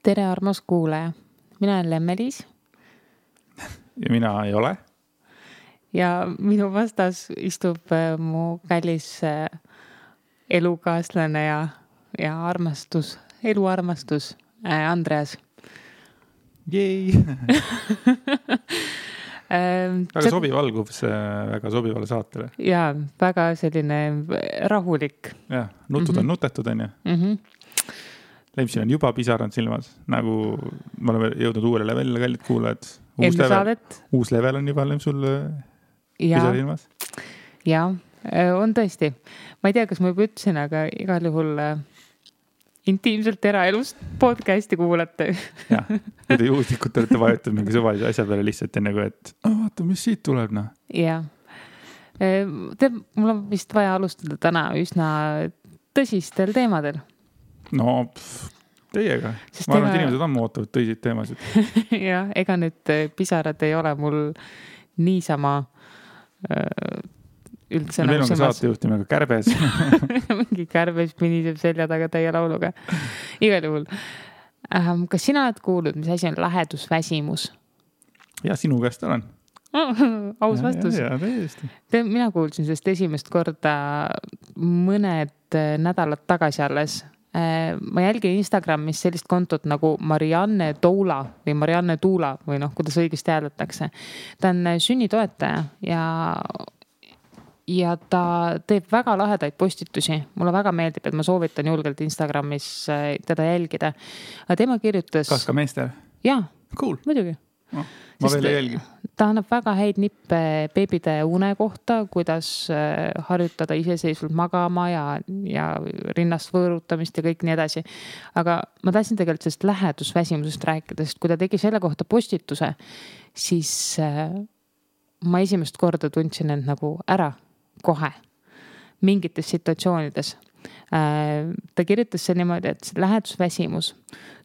Tere, armas kuulaja. Mina olen Lemmelis. Ja mina ei ole. Ja minu vastas istub mu kallis elukaaslane ja armastus, eluarmastus Andreas. Jej! Väga sobiv algus väga sobivale saatele. Ja, väga selline rahulik. Ja, nutud on nutetud, on ju. Lemsil on juba pisarad silmas, nagu me oleme jõudnud uuele levelile, kallid kuulajad. Uus level on juba Lemsul pisar silmas. Ja, on tõesti. Ma ei tea, kas ma juba ütlesin, aga igal juhul intiimselt eraelust podcasti kuulate. Ja, kui te juhuslikult olete vajutud mingi suvalise asja peale lihtsalt enne kui, et vaata, mis siit tuleb, noh. Ja. Mul on vist vaja alustada täna üsna tõsistel teemadel. No, teiega. Ma arvan, et inimesed ammu ootavad tõsiseid teemasid. Ja, ega nüüd pisarad ei ole mul niisama üldse meil on ka saatejuht nimega Kärbes. Mingi Kärbes piniseb selja taga täie lauluga. Igal juhul. Kas sina oled kuulnud, mis asi on lähedusväsimus? Ja, sinu käest olen. Aus vastus. Ja, täiesti. Mina kuulsin sellest esimest korda mõned nädalad tagasi alles. Ma jälgin Instagramis sellist kontot nagu Marianne Toula või Marianne Tuula või kuidas õigesti hääldatakse. Ta on sünnitoetaja ja ta teeb väga lahedaid postitusi. Mulle väga meeldib, et ma soovitan julgelt Instagramis teda jälgida. Tema kirjutas... Kas ka meester? Jaa, cool. Muidugi. No, ma veel ei jälgi. Ta annab väga häid nippe beebide une kohta, kuidas harjutada iseseisvalt magama ja rinnast võõrutamist ja kõik nii edasi. Aga ma tahtsin tegelikult sellest lähedusväsimusest rääkida, sest kui ta tegi selle kohta postituse, siis ma esimest korda tundsin end nagu ära kohe mingites situatsioonides. Ta kirjutas see niimoodi, et lähedusväsimus.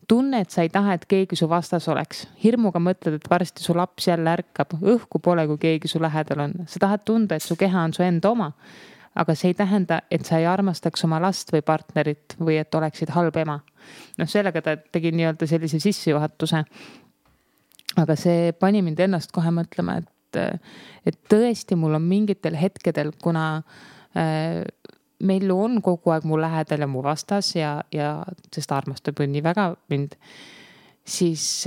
Tunne, et sa ei taha, et keegi su vastas oleks. Hirmuga mõtled, et varsti su laps jälle ärkab. Õhku pole, kui keegi su lähedal on. Sa tahad tunda, et su keha on su enda oma. Aga see ei tähenda, et sa ei armastaks oma last või partnerit või et oleksid halb ema. Sellega ta tegi nii-öelda sellise sissejuhatuse. Aga see pani mind ennast kohe mõtlema, et tõesti mul on mingitel hetkedel, kuna meil on kogu aeg mu lähedal ja mu vastas ja sest armastab nii väga mind, siis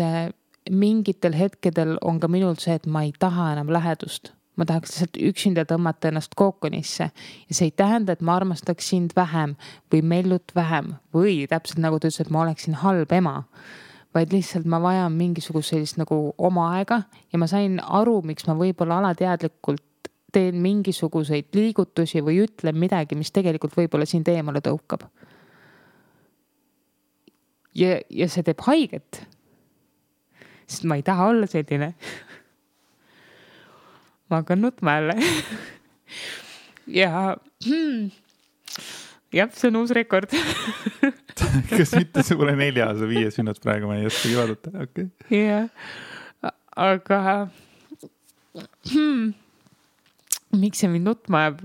mingitel hetkedel on ka minul see, et ma ei taha enam lähedust. Ma tahaks lihtsalt üksinda tõmmata ennast kookonisse ja see ei tähenda, et ma armastaks sind vähem või mellut vähem või täpselt nagu ta ütles, et ma oleksin halb ema, vaid lihtsalt ma vajan mingisugust sellist nagu oma aega ja ma sain aru, miks ma võib-olla alateadlikult teen mingisuguseid liigutusi või ütlen midagi, mis tegelikult võib-olla sind eemale tõukab. Ja see teeb haiget. Sest ma ei taha olla selline. Ma hakkan nutma jälle. Ja see on uus rekord. Kas mitte see pole 4, see 5 minut praegu, ma ei oskagi vaadata. Okay. Ja, aga miks see mind nutma jääb?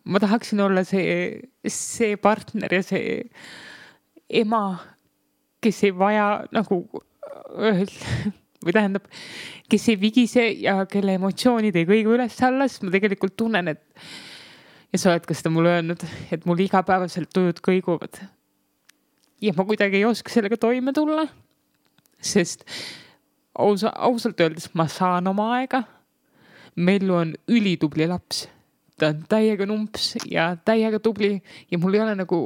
Ma tahaksin olla see partner ja see ema, kes ei vaja nagu või tähendab, kes ei vigise ja kelle emotsioonid ei kõigu üles alles. Ma tegelikult tunnen, ja sa oled ka seda mulle öelnud, et mul igapäevaselt tujud kõiguvad. Ja ma kuidagi ei oska sellega toime tulla, sest ausalt öeldes ma saan oma aega. Mellu on ülitubli laps. Ta on täiega numps ja täiega tubli ja mul ei ole nagu,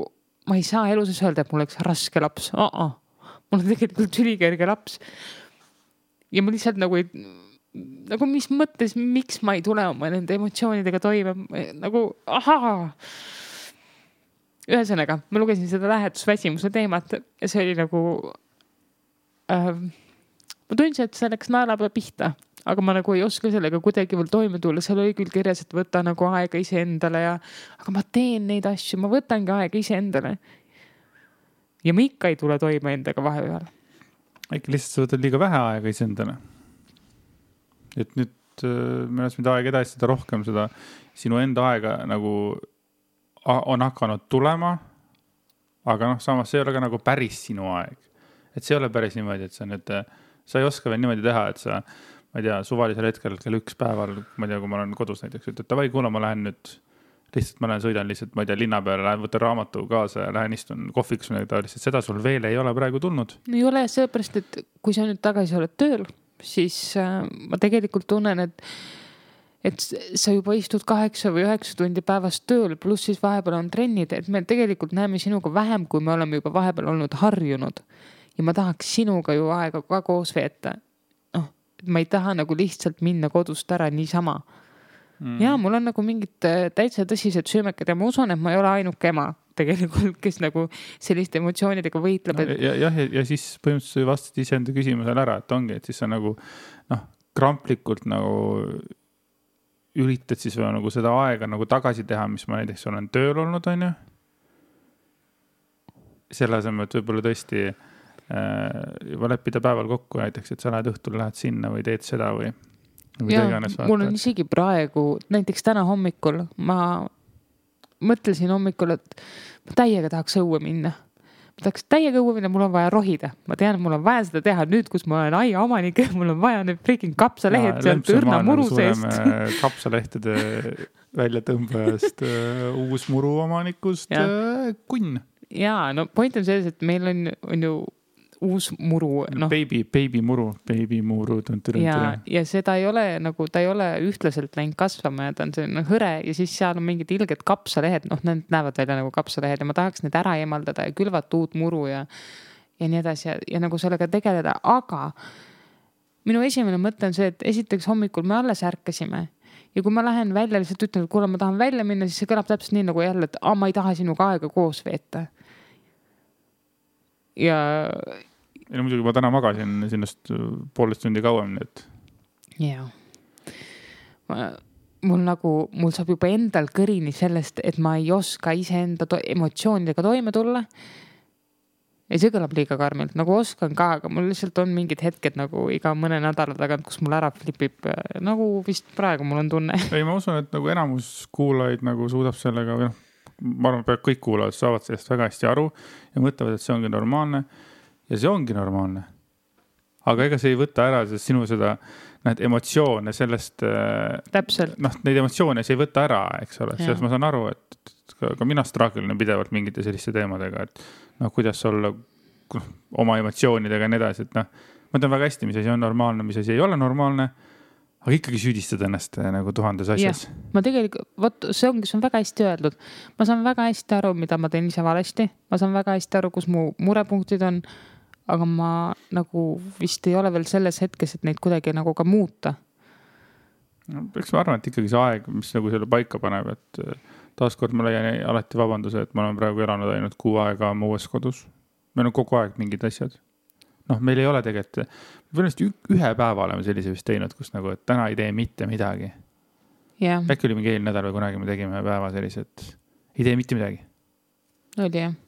ma ei saa eluses öelda, et mul oleks raske laps. Mul on tegelikult ülikerge laps. Ja ma lihtsalt nagu mis mõttes, miks ma ei tule oma nende emotsioonidega toime. Nagu, Ühesõnaga, ma lugesin seda lähedusväsimuse teemat ja see oli nagu ma tundsin, et see läks naelapea pihta. Aga ma nagu ei oska sellega kuidagi veel toime tulla. Seal oli küll kirjas, et võta nagu aega iseendale aga ma teen neid asju, ma võtangi aega iseendale. Ja ma ikka ei tule toime endaga vahepeal. Äkki lihtsalt sa võtad liiga vähe aega iseendale. Et nüüd me oleme mida aega edasi, seda rohkem sinu enda aega nagu on hakanud tulema aga samas see ei ole ka nagu päris sinu aeg. Et see ei ole päris niimoodi, et sa ei oska veel niimoodi teha, et sa, ma ei tea, suvalisel hetkel kell 1 päeval, ma ei tea, kui ma olen kodus näiteks, et davai, kuule, ma lähen nüüd lihtsalt, ma sõidan lihtsalt, ma ei tea, linna peale, lähen võtan raamatu kaasa ja lähen istun kohviks või taoliselt. Seda sul veel ei ole praegu tulnud. Ei ole sellepärast, et kui sa nüüd tagasi oled tööl, siis ma tegelikult tunnen, et sa juba istud 8 või 9 tundi päevast tööl, pluss siis vahepeal on trennid, et me tegelikult näeme sinuga vähem, kui me oleme juba vahepeal olnud harjunud. Ja ma tahaks sinuga ju aega ka koos veeta. Ma ei taha nagu lihtsalt minna kodust ära niisama. Ja mul on nagu mingid täitsa tõsised süümekad ja ma usun, et ma ei ole ainuke ema tegelikult, kes nagu selliste emotsioonidega võitleb. Ja siis põhimõtteliselt vastad iseenda küsimusele ära, et ongi, et siis sa nagu kramplikult nagu üritad siis nagu seda aega nagu tagasi teha, mis ma näiteks olen tööl olnud, on ju. Selle asemel, et võib-olla tõesti juba leppida päeval kokku näiteks, et sa lähed õhtul, lähed sinna või teed seda või ja, mul on isegi praegu, näiteks täna hommikul, ma mõtlesin hommikul, et ma täiega tahaks õue minna. Ma tahaks täiega õue minna, mul on vaja rohida. Ma tean, mul on vaja seda teha nüüd, kus ma olen aia omanik, mul on vaja nüüd freaking kapsalehed sealt õrna muru seest. Kapsalehtede väljatõmbajast, uus muru omanikust kunn. Jaa, no point on selles, et meil on ju uus muru. Baby muru. Ja seda ei ole nagu, ta ei ole ühtlaselt läinud kasvama ja ta on selline hõre ja siis seal on mingid ilged kapsalehed, need näevad välja nagu kapsalehed ja ma tahaks need ära eemaldada ja külvata uut muru ja nii edasi ja nagu sellega tegeleda, aga minu esimene mõte on see, et esiteks hommikul me alles ärkasime ja kui ma lähen välja, lihtsalt ütlen, et kuule, ma tahan välja minna, siis see kõlab täpselt nii nagu jälle, et ma ei taha sinuga aega koos veeta. Ja muidugi ma täna magasin sinnast 1,5 tundi kauem. Jaa. Mul saab juba endal kõrini sellest, et ma ei oska iseenda emotsioonidega toime tulla. Ja see kõlab liiga karmilt, nagu oskan ka, aga mul lihtsalt on mingid hetked nagu iga mõne nädala tagant, kus mul ära flipib, nagu vist praegu mul on tunne. Ei, ma usun, et nagu enamus kuulajaid nagu suudab sellega, ma arvan, et kõik kuulajad saavad sellest väga hästi aru ja mõtlevad, et see ongi normaalne. Ja see ongi normaalne. Aga ega see ei võta ära sinu seda emotsioone sellest... Täpselt. Neid emotsioone see ei võta ära, eks ole. Selles ma saan aru, et ka mina straagelin pidevalt mingite selliste teemadega, et kuidas olla oma emotsioonidega ja nii edasi. Et ma tean väga hästi, mis asi on normaalne, mis asi ei ole normaalne, aga ikkagi süüdistad ennast nagu 1000 asjas. Ja, ma tegelikult, see on väga hästi öeldud. Ma saan väga hästi aru, mida ma teen ise valesti. Ma saan väga hästi aru, kus mu murepunktid on, aga ma nagu vist ei ole veel selles hetkes, et neid kuidagi nagu ka muuta. Eks ma arvan, et ikkagi see aeg, mis nagu selle paika paneb, et taaskord ma leian alati vabanduse, et ma olen praegu elanud ainult 6 aega oma uues kodus. Meil on kogu aeg mingid asjad. Meil ei ole tegelikult, ühe päeva oleme sellise vist teinud, kus nagu, et täna ei tee mitte midagi. Yeah. Äkki oli mingi eelnädal või kunagi me tegime päeva sellised, ei tee mitte midagi. Oli jah.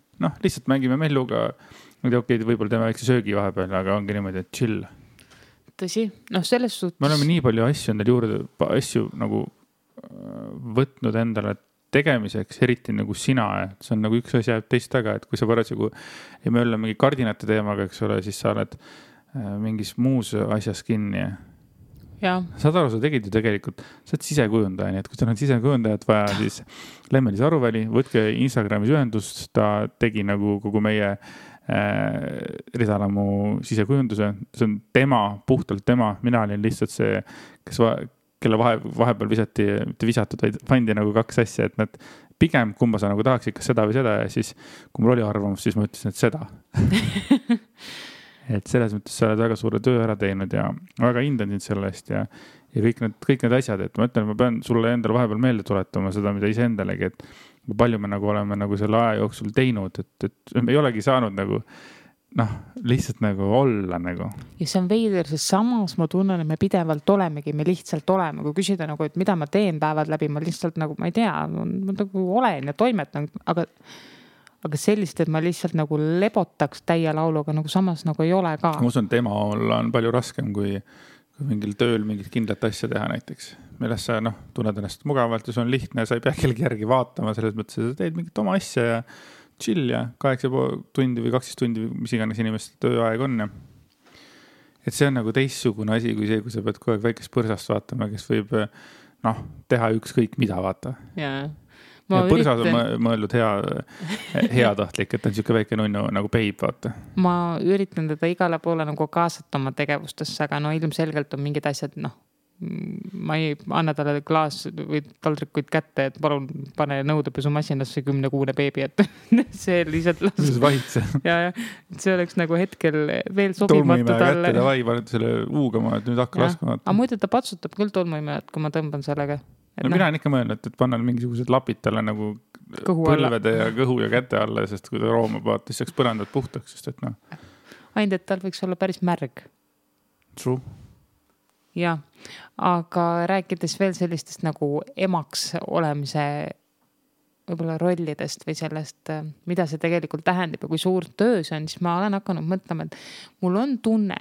Lihtsalt mängime melluga, võib-olla teeme väikse söögi vahepeal, aga ongi niimoodi, et chill. Tõsi, selles suhtes. Me oleme nii palju asju endale juurde, asju nagu võtnud endale tegemiseks, eriti nagu sina, et see on nagu üks asi jääb teist taga, et kui sa parasjagu ei möölla mingi kardinate teemaga, eks ole, siis sa oled mingis muus asjas kinni. Ja. Saad aru, sa tegid ju tegelikult, sa oled sisekujundaja, nii et kui sa oled sisekujundajat vaja, siis Lemmelis Aruväli, võtke Instagramis ühendust, ta tegi nagu kogu meie Ridalamu sisekujunduse, see on tema, puhtalt tema, mina olin lihtsalt see, kelle vahepeal mitte visatud, vaid pandi nagu 2 asja, et nad pigem kumba sa nagu tahaks ikka seda või seda ja siis kui mul oli arvamus, siis ma ütlesin, et seda. Et selles mõttes sa oled väga suure töö ära teinud ja väga hindan sind selle eest ja kõik need asjad, et ma ütlen, ma pean sulle endale vahepeal meelde tuletama seda, mida ise endalegi, et palju me nagu oleme nagu selle aja jooksul teinud, et me ei olegi saanud nagu lihtsalt nagu olla nagu. Ja see on veider, sest samas ma tunnen, et me pidevalt olemegi, me lihtsalt oleme, kui küsida nagu, et mida ma teen päevad läbi, ma lihtsalt nagu, ma ei tea, ma nagu olen ja toimetan, aga sellist, et ma lihtsalt nagu lebotaks täie lauluga, nagu samas nagu ei ole ka. Ma usun, et ema olla on palju raskem kui mingil tööl mingit kindlat asja teha näiteks. Milles sa tunned ennast mugavalt ja see on lihtne ja sa ei pea kellegi järgi vaatama selles mõttes, et sa teed mingit oma asja ja chill ja 8,5 tundi või 12 tundi, mis iganes inimeste tööaeg on ja et see on nagu teistsugune asi kui see, kui sa pead kogu aeg väikest põrsast vaatama, kes võib teha ükskõik mida, vaata. Ja põrsas on mõeldud heatahtlik, et on siuke väike nunnu nagu peib, vaata. Ma üritan teda igale poole nagu kaasata oma tegevustesse, aga ilmselgelt on mingid asjad, ma ei anna talle klaas või taldrikuid kätte, et palun pane nõudepesumasinasse 10-kuune beebi, et see lihtsalt vahitse. Ja see oleks nagu hetkel veel sobimatu talle. Tolmuimeja kätte davai, paned selle uugama, et nüüd hakka laskma. Aga muidu ta patsutab küll tolmuimejat, kui ma tõmban sellega. Mina olen ikka mõelnud, et panna mingisugused lapid talle nagu põlvede ja kõhu ja käte alla, sest kui ta roomab, vaata, siis saaks põrandad puhtaks, sest et Ainult, et tal võiks olla päris märg. True. Ja, aga rääkides veel sellistest nagu emaks olemise võib-olla rollidest või sellest, mida see tegelikult tähendab ja kui suur töö see on, siis ma olen hakanud mõtlema, et mul on tunne,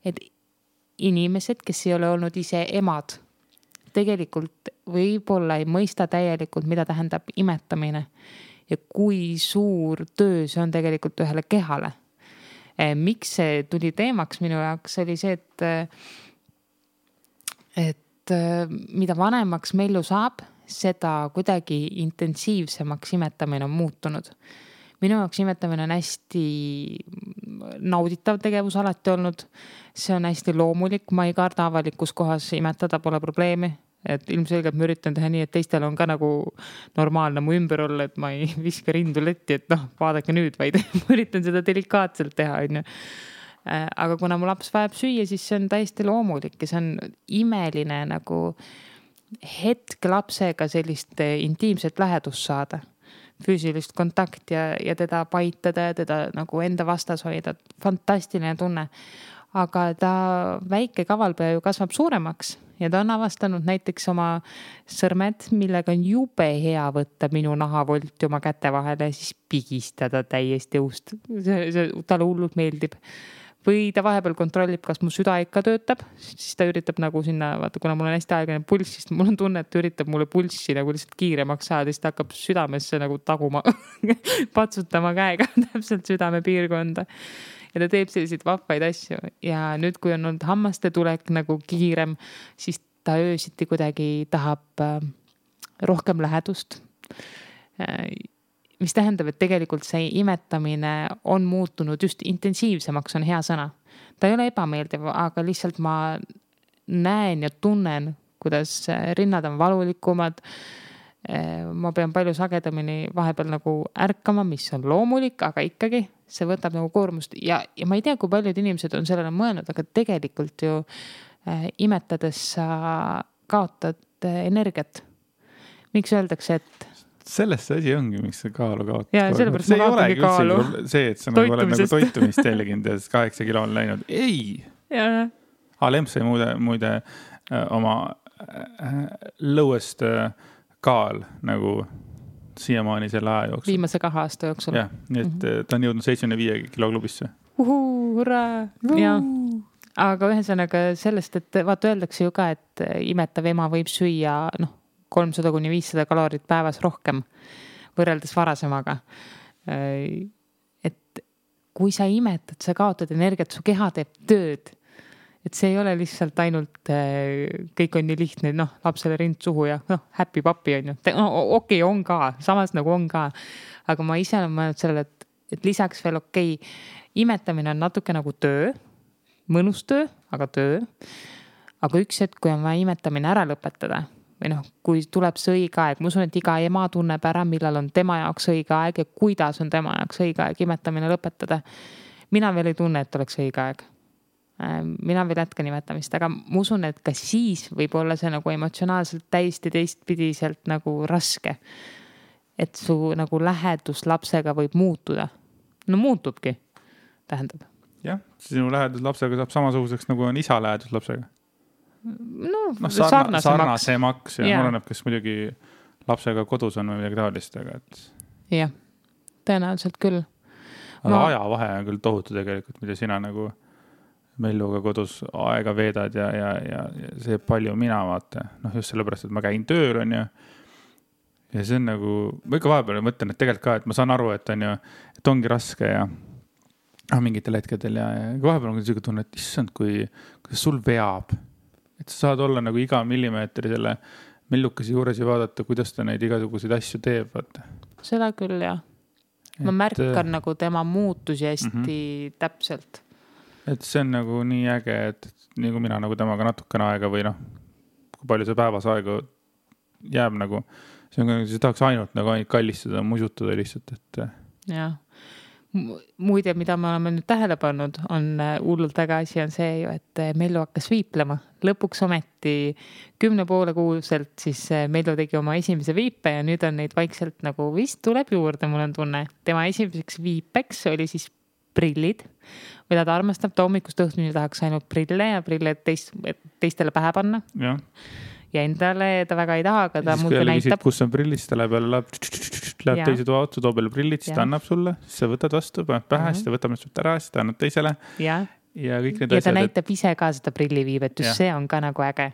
et inimesed, kes ei ole olnud ise emad, tegelikult võib-olla ei mõista täielikult, mida tähendab imetamine ja kui suur töö see on tegelikult ühele kehale. Miks see tuli teemaks minu jaoks, oli see, et mida vanemaks Mellu saab, seda kuidagi intensiivsemaks imetamine on muutunud. Minu jaoks imetamine on hästi nauditav tegevus alati olnud. See on hästi loomulik, ma ei karda avalikus kohas imetada, pole probleemi. Et ilmselgelt ma üritan teha nii, et teistel on ka nagu normaalne mu ümber olla, et ma ei viska rindu letti, et vaadake nüüd, vaid ma üritan seda delikaatselt teha, on ju. Aga kuna mu laps vajab süüa, siis see on täiesti loomulik ja see on imeline nagu hetk lapsega sellist intiimset lähedust saada, füüsilist kontakt ja teda paitada ja teda nagu enda vastas hoida. Fantastiline tunne. Aga ta väike kavalpea ju kasvab suuremaks ja ta on avastanud näiteks oma sõrmed, millega on jube hea võtta minu nahavolti oma käte vahele ja siis pigistada täiesti õust. See talle hullult meeldib. Või ta vahepeal kontrollib, kas mu süda ikka töötab, siis ta üritab nagu sinna, vaata, kuna mul on hästi aegane pulss, siis mul on tunne, et ta üritab mulle pulssi nagu lihtsalt kiiremaks saada, siis ta hakkab südamesse nagu taguma, patsutama käega täpselt südame piirkonda. Ja ta teeb selliseid vahvaid asju. Ja nüüd, kui on olnud hammaste tulek nagu kiirem, siis ta öösiti kuidagi tahab rohkem lähedust. Mis tähendab, et tegelikult see imetamine on muutunud just intensiivsemaks, on hea sõna. Ta ei ole ebameeldiv, aga lihtsalt ma näen ja tunnen, kuidas rinnad on valulikumad. Ma pean palju sagedamini vahepeal nagu ärkama, mis on loomulik, aga ikkagi see võtab nagu koormust. Ja ma ei tea, kui paljud inimesed on sellele mõelnud, aga tegelikult ju imetades sa kaotad energiat. Miks öeldakse, et sellest see asi ongi, miks see kaalu kaotab. Ja sellepärast ma kaotangi kaalu. See, et sa nagu oled nagu toitumist jälginud ja 8 kilo on läinud. Ei! Lemps sai muide oma lõuest kaal nagu siiamaani selle aja jooksul. Viimase 2 aasta jooksul. Jah, nii et ta on jõudnud 75 kilo klubisse. Hurra! Ja. Aga ühesõnaga sellest, et vaata öeldakse ju ka, et imetav ema võib süüa 300-500 kalorit päevas rohkem võrreldes varasemaga. Et kui sa imetad, sa kaotad energiat, su keha teeb tööd. Et see ei ole lihtsalt ainult, kõik on nii lihtne, lapsele rind suhu ja happy papi on ju. Okei, on ka, samas nagu on ka. Aga ma ise olen mõelnud sellele, et lisaks veel imetamine on natuke nagu töö, mõnus töö, aga töö. Aga üks hetk, kui on vaja imetamine ära lõpetada, või kui tuleb see õige aeg, ma usun, et iga ema tunneb ära, millal on tema jaoks õige aeg ja kuidas on tema jaoks õige aeg imetamine lõpetada. Mina veel ei tunne, et oleks õige aeg. Mina veel jätkan imetamist, aga ma usun, et ka siis võib olla see nagu emotsionaalselt täiesti teistpidiselt nagu raske. Et su nagu lähedus lapsega võib muutuda. Muutubki, tähendab. Jah, sinu lähedus lapsega saab samasuguseks, nagu on isa lähedus lapsega. Sarnasemaks ja oleneb, kes muidugi lapsega kodus on või midagi taolist, aga et... Jah, tõenäoliselt küll. Aga ajavahe on küll tohutu tegelikult, mida sina nagu Melluga kodus aega veedad ja see palju mina vaata. Just sellepärast, et ma käin tööl on ja see on nagu, ma ikka vahepeal mõtlen, et tegelikult ka, et ma saan aru, et on ju, et ongi raske ja mingitel hetkedel ja vahepeal on selline tunne, et issand, kuidas sul veab, et sa saad olla nagu iga millimeetri selle mellukese juures ja vaadata, kuidas ta neid igasuguseid asju teeb, vaata. Seda küll, jah. Ma märkan nagu tema muutusi hästi täpselt. Et see on nagu nii äge, et nagu mina nagu temaga natukene aega või kui palju see päevas aega jääb nagu, see tahaks ainult nagu kallistada, musutada lihtsalt, et. Jah. Muide, mida me oleme nüüd tähele pannud, on hullult väga asi on see ju, et Mellu hakkas viiplema. Lõpuks ometi 10,5 kuuselt siis Mellu tegi oma esimese viipe ja nüüd on neid vaikselt nagu vist tuleb juurde, mul on tunne. Tema esimeseks viipeks oli siis prillid, mida ta armastab, ta hommikust õhtuni tahaks ainult prille ja prille teistele pähe panna. Ja. Ja endale ta väga ei taha, aga ta muudki näitab. Kus on prillid, ta läheb teise toa otsa, toob jälle prillid, siis ta annab sulle, siis sa võtad vastu, paned pähe, siis ta võtab nüüd ära, siis ta annab teisele. Ja kõik need asjad. Ja ta näitab ise ka seda prilliviibet, just see on ka nagu äge.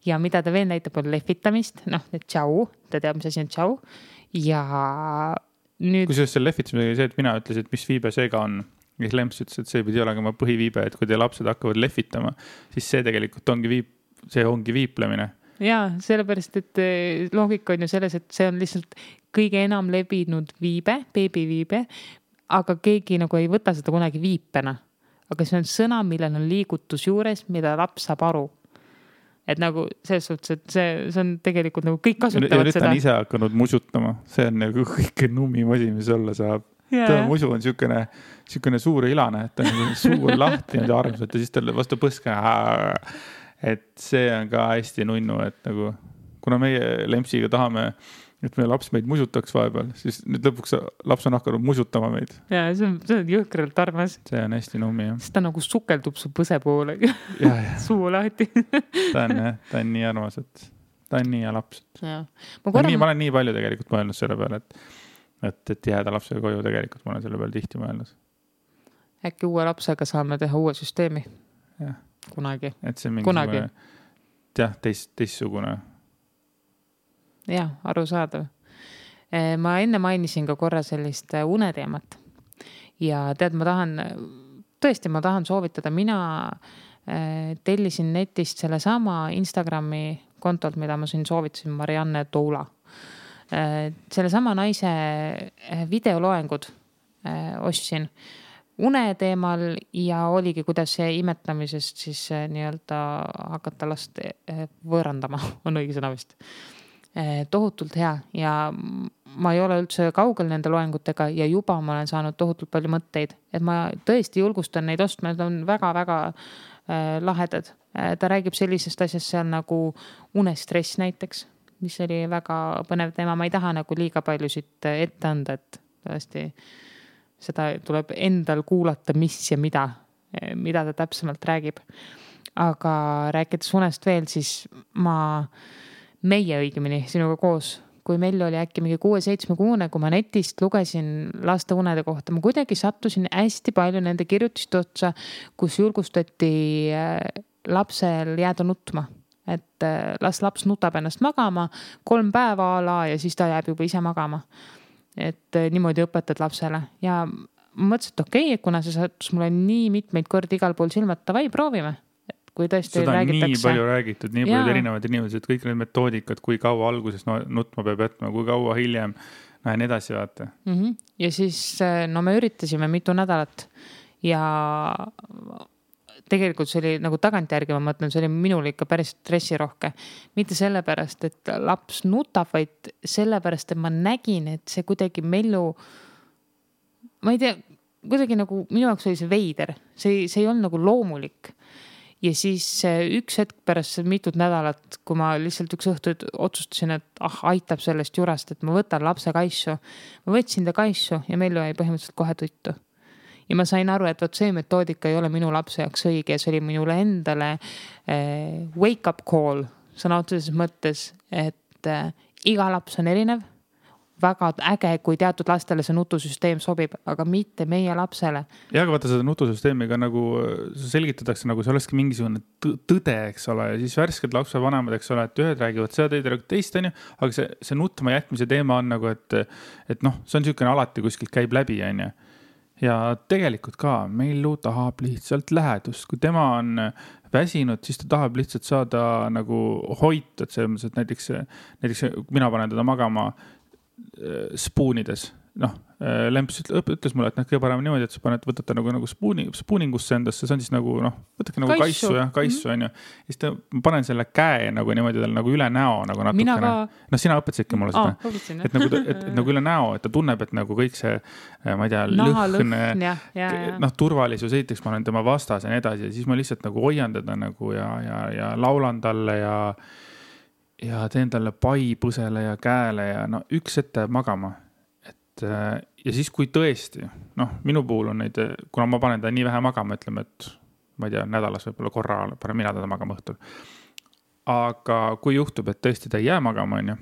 Ja mida ta veel näitab, on lehvitamist, et tšau, ta teab, mis asi on tšau. Ja nüüd. Kusjuures selle lehvitamisega oli see, et mina ütlesin, et mis viibe seega on. Ja Lemps ütles, et see pidi olema oma põhiviibe, et kui teie lapsed hakkavad lehvitama, siis see tegelikult ongi viiplemine. Jaa, sellepärast, et loogika on ju selles, et see on lihtsalt kõige enam levinud viibe, beebiviibe, aga keegi nagu ei võta seda kunagi viipena. Aga see on sõna, millel on liigutus juures, mida laps saab aru. Et nagu selles suhtes, et see on tegelikult nagu kõik kasutavad seda. Ja nüüd ta on ise hakanud musutama. See on nagu kõike nummim asi, mis olla saab. Ta musu on siukene suur ilane, et ta on suur lahti ja armsalt ja siis ta vastu põska. Et see on ka hästi nunnu, et nagu, kuna meie Lempsiga tahame, et meie laps meid musutaks vahepeal, siis nüüd lõpuks laps on hakanud musutama meid. Ja, see on jõhkralt armas. See on hästi nummi, jah. Sest ta nagu sukeldub su põse poole. Suu lahti. Ta on nii armas, et ta on nii hea laps. Ma olen nii palju tegelikult mõelnud selle peale, et jääda lapsega koju tegelikult, ma olen selle peale tihti mõelnud. Äkki uue lapsega saame teha uue süsteemi? Jah. Kunagi. Et see mingisugune, teistsugune. Jah, arusaadav. Ma enne mainisin ka korra sellist uneteemat. Ja tead, ma tahan soovitada. Mina tellisin netist selle sama Instagrami kontolt, mida ma siin soovitasin, Marianne Toula. Selle sama naise videoloengud ostsin une teemal ja oligi, kuidas see imetamisest siis nii-öelda hakata last võõrandama, on õige sõna vist. Tohutult hea ja ma ei ole üldse kaugel nende loengutega ja juba ma olen saanud tohutult palju mõtteid, et ma tõesti julgustan neid ostma, need on väga-väga lahedad. Ta räägib sellisest asjast seal nagu unestress näiteks, mis oli väga põnev teema, ma ei taha nagu liiga palju siit ette anda, et tõesti seda tuleb endal kuulata, mis ja mida ta täpsemalt räägib. Aga rääkides unest veel, siis meie õigemini sinuga koos, kui meil oli äkki mingi 6-7 kuune, kui ma netist lugesin laste unede kohta, ma kuidagi sattusin hästi palju nende kirjutiste otsa, kus julgustati lapsel jääda nutma. Et laps nutab ennast magama 3 päeva ala ja siis ta jääb juba ise magama. Et niimoodi õpetad lapsele ja ma mõtlesin, et okei, kuna see sattus mulle nii mitmeid kordi igal pool silmad, tavai, proovime. Et kui tõesti seda räägitakse. Nii palju räägitud, nii palju erinevad inimesed, kõik need metoodikad, kui kaua alguses nutma peab jätma, kui kaua hiljem, nii edasi vaata. Ja siis me üritasime mitu nädalat ja tegelikult see oli nagu tagantjärgi, ma mõtlen, see oli minul ikka päris stressirohke. Mitte sellepärast, et laps nutab, vaid sellepärast, et ma nägin, et see kuidagi Mellu, ma ei tea, kuidagi nagu minu jaoks oli see veider. See ei olnud nagu loomulik. Ja siis üks hetk pärast mitut nädalat, kui ma lihtsalt üks õhtu otsustasin, et aitab sellest jurast, et ma võtan lapse kaissu. Ma võtsin ta kaissu ja Mellu jäi põhimõtteliselt kohe tuttu. Ja ma sain aru, et see metoodika ei ole minu lapse jaoks õige ja see oli minule endale wake up call sõna otseses mõttes, et iga laps on erinev, väga äge, kui teatud lastele see nutusüsteem sobib, aga mitte meie lapsele. Ja aga vaata seda nutusüsteemiga nagu selgitatakse, nagu see olekski mingisugune tõde, eks ole, ja siis värsked lapsevanemad, eks ole, et ühed räägivad seda teist, on ju, aga see nutma jätmise teema on nagu, et noh, see on niisugune alati kuskilt käib läbi, on ju. Ja tegelikult ka, meil tahab lihtsalt lähedust. Kui tema on väsinud, siis ta tahab lihtsalt saada nagu hoitud, selles mõttes, et näiteks mina panen teda magama spoonides. Noh, Lemps ütles mulle, et kõige parem niimoodi, et sa võtad ta nagu spooningusse endasse, see on siis nagu, noh, võtake nagu kaissu, on ju. Siis ma panen selle käe nagu niimoodi tal nagu üle näo nagu natukene. No sina õpetasidki mulle seda. Et nagu üle näo, et ta tunneb, et nagu kõik see, ma ei tea, lõhn, turvalisus, esiteks ma olen tema vastas ja nii edasi, ja siis ma lihtsalt nagu hoian teda nagu ja laulan talle ja teen talle pai põsele ja käele ja no üks ette magama. Ja siis kui tõesti, noh, minu puhul on neid, kuna ma panen ta nii vähe magama, ütleme, et ma ei tea, nädalas võib-olla korra panen mina teda magama õhtul. Aga kui juhtub, et tõesti ta ei jää magama, on ju,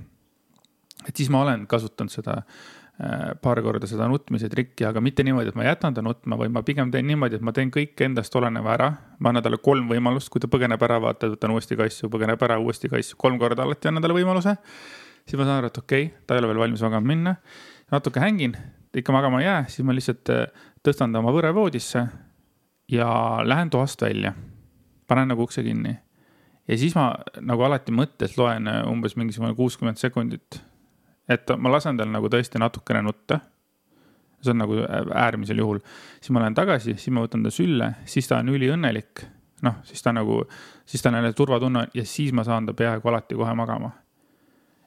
et siis ma olen kasutanud seda paar korda seda nutmise trikki, aga mitte niimoodi, et ma jätan ta nutma, või ma pigem teen niimoodi, et ma teen kõik endast oleneva ära. Ma annan talle 3 võimalust, kui ta põgeneb ära, vaata, võtan uuesti kaissu, põgeneb ära, uuesti kaissu, 3 korda alati annan talle võimaluse. Siis ma saan aru, et okei, ta ei ole veel valmis magama minna. Natuke hängin, ikka magama ei jää, siis ma lihtsalt tõstan ta oma võrevoodisse ja lähen toast välja. Panen nagu ukse kinni. Ja siis ma nagu alati mõttes loen umbes mingisugune 60 sekundit. Et ma lasen tal nagu tõesti natukene nutta. See on nagu äärmisel juhul. Siis ma lähen tagasi, siis ma võtan ta sülle, siis ta on üliõnnelik. Noh, siis ta on jälle turvatunne ja siis ma saan ta peaaegu alati kohe magama.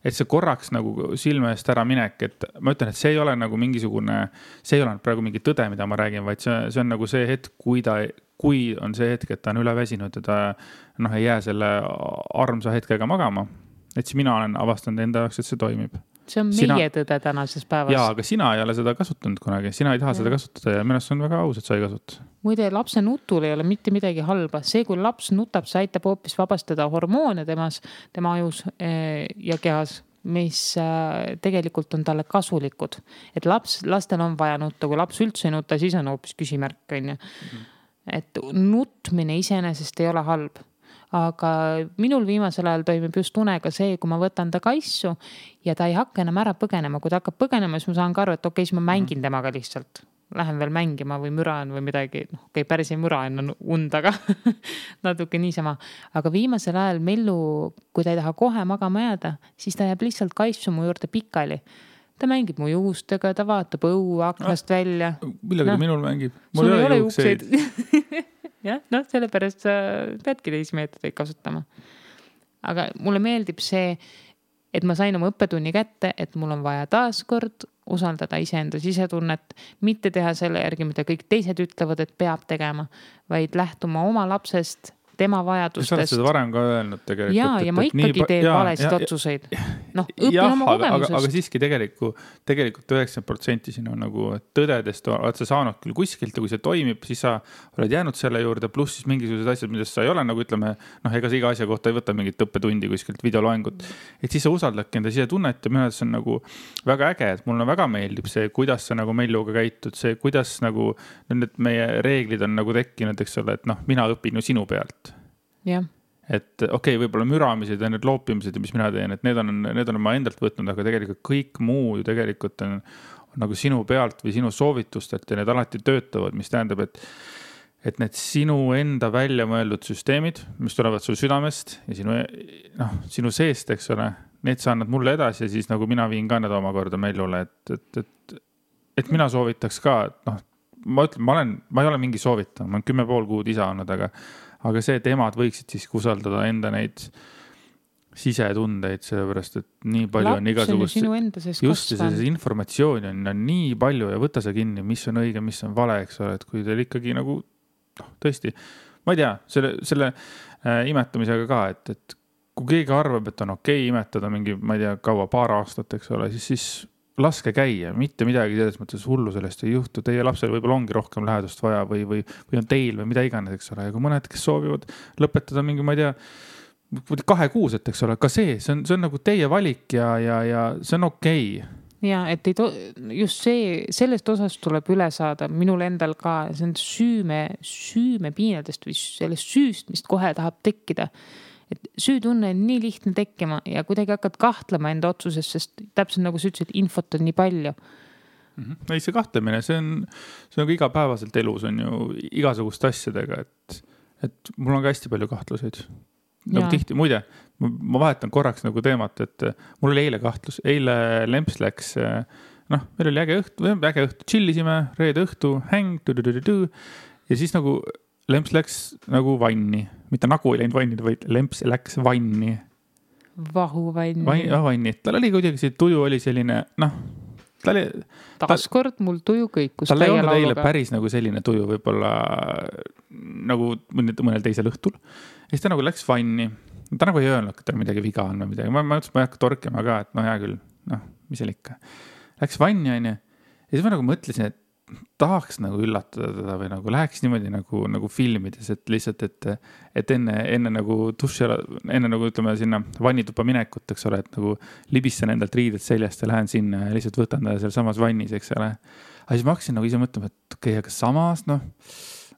Et see korraks nagu silme eest ära minek, et ma ütlen, et see ei ole nagu mingisugune, see ei ole praegu mingi tõde, mida ma räägin, vaid see on nagu see hetk, kui on see hetk, et ta on üleväsinud ja ta ei jää selle armsa hetkega magama. Et siis mina olen avastanud enda jaoks, et see toimib. See on meie tõde tänases päevas. Jaa, aga sina ei ole seda kasutanud kunagi. Sina ei taha seda kasutada ja minu arust on väga aus, et sa ei kasuta. Muide, lapse nutul ei ole mitte midagi halba. See, kui laps nutab, see aitab hoopis vabastada hormoone tema ajus ja kehas, mis tegelikult on talle kasulikud. Et lastel on vaja nutta. Kui laps üldse ei nuta, siis on hoopis küsimärk. Et nutmine iseenesest ei ole halb. Aga minul viimasel ajal toimib just unega see, kui ma võtan ta kaissu ja ta ei hakka enam ära põgenema. Kui ta hakkab põgenema, siis ma saan ka aru, et okei, siis ma mängin temaga lihtsalt. Lähen veel mängima või müraan või midagi. Okei, päris ei müra enne und, aga natuke niisama. Aga viimasel ajal Mellu, kui ta ei taha kohe magama jääda, siis ta jääb lihtsalt kaissu mu juurde pikali. Ta mängib mu juustega, ta vaatab õue aknast välja. Millega ta minul mängib? Sul ei ole juukseid. Ja, sellepärast sa peadki teisi meetodeid kasutama. Aga mulle meeldib see, et ma sain oma õppetunni kätte, et mul on vaja taaskord usaldada iseenda sisetunnet, mitte teha selle järgi, mida kõik teised ütlevad, et peab tegema, vaid lähtuma oma lapsest, tema vajadustest. Sa oled seda varem ka öelnud tegelikult. Ja ma ikkagi teen valesid otsuseid. Õpin oma kogemusest. Aga siiski tegelikult 90% sinu nagu tõdedest oled sa saanud küll kuskilt ja kui see toimib, siis sa oled jäänud selle juurde, pluss siis mingisugused asjad, millest sa ei ole nagu ütleme, ega see iga asja kohta ei võta mingit õppetundi kuskilt videoloengut. Et siis sa usaldadki enda sisetunnet ja minu arvates on nagu väga äge, et mulle väga meeldib see, kuidas sa nagu Melluga käitud, see, kuidas nagu need meie reeglid on nagu tekkinud, eks ole, et mina õpin ju sinu pealt. Ja. Et okei, võib-olla müramised ja need loopimised, mis mina teen, et need on ma endalt võtnud, aga tegelikult kõik muu ju tegelikult on nagu sinu pealt või sinu soovitustelt ja need alati töötavad, mis tähendab, et need sinu enda välja mõeldud süsteemid, mis tulevad sul südamest ja sinu seest, eks ole, need sa annad mulle edasi ja siis nagu mina viin ka need omakorda Mellule, et mina soovitaks ka, ma ütlen, ma ei ole mingi soovitaja, ma olen 10,5 kuud isa olnud, aga see, et emad võiksid siis usaldada enda neid sisetundeid, sellepärast, et nii palju on igasugust, just see informatsioon on nii palju ja võta see kinni, mis on õige, mis on vale, eks ole, et kui teil ikkagi nagu, tõesti, ma ei tea, selle imetamisega ka, et kui keegi arvab, et on okei imetada mingi, ma ei tea, kaua, paar aastat, eks ole, siis laske käia, mitte midagi selles mõttes hullu sellest ei juhtu. Teie lapsel võib-olla ongi rohkem lähedust vaja või on teil või mida iganes, eks ole. Ja kui mõned, kes soovivad lõpetada mingi, ma ei tea, 2 kuuset, eks ole, ka see on nagu teie valik ja see on okei. ja et just sellest osast tuleb üle saada minul endal ka, see on süümepiinadest või sellest süüst, mis kohe tahab tekkida. Et süütunne on nii lihtne tekkima ja kuidagi hakkad kahtlema enda otsuses, sest täpselt nagu sa ütlesid, infot on nii palju. Ei, see kahtlemine, see on nagu igapäevaselt elus on ju igasuguste asjadega, et mul on ka hästi palju kahtluseid. Nagu tihti, muide, ma vahetan korraks nagu teemat, et mul oli eile kahtlus. Eile Lemps läks, meil oli äge õhtu, chillisime, reede õhtu, häng, ja siis nagu Lemps läks nagu vanni. Mitte nagu ei läinud vanni, vaid Lemps läks vanni. Vahuvanni. Tal oli kuidagi see tuju oli selline, taaskord mul tuju kõikus. Tal ei olnud eile päris nagu selline tuju võib-olla nagu mõnel teisel õhtul. Ja siis ta nagu läks vanni. Ta nagu ei öelnud, et tal midagi viga on või midagi. Ma ütlesin, ma ei hakka torkima ka, et hea küll, mis seal ikka. Läks vanni, on ju. Ja siis ma nagu mõtlesin, et tahaks nagu üllatada teda või nagu läheks niimoodi nagu filmides, et lihtsalt, et enne nagu duši, enne nagu ütleme sinna vannitupa minekut, eks ole, et nagu libistan endalt riided seljast ja lähen sinna ja lihtsalt võtan ta seal samas vannis, eks ole. Aga siis ma hakkasin nagu ise mõtlema, et okei, aga samas,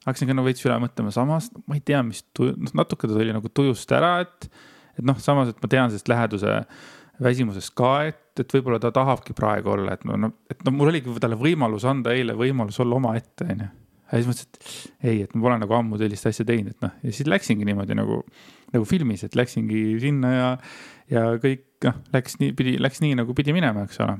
hakkasin ka nagu veits üle mõtlema samas, ma ei tea, mis natuke ta tuli nagu tujust ära, et samas, et ma tean sellest läheduse väsimusest ka, et võib-olla ta tahabki praegu olla, et mul oligi talle võimalus anda eile võimalus olla oma ette, on ju. Ja siis mõtlesin, et ei, et ma pole nagu ammu sellist asja teinud, ja siis läksingi niimoodi nagu filmis, et läksingi sinna ja kõik läks nii nagu pidi minema, eks ole.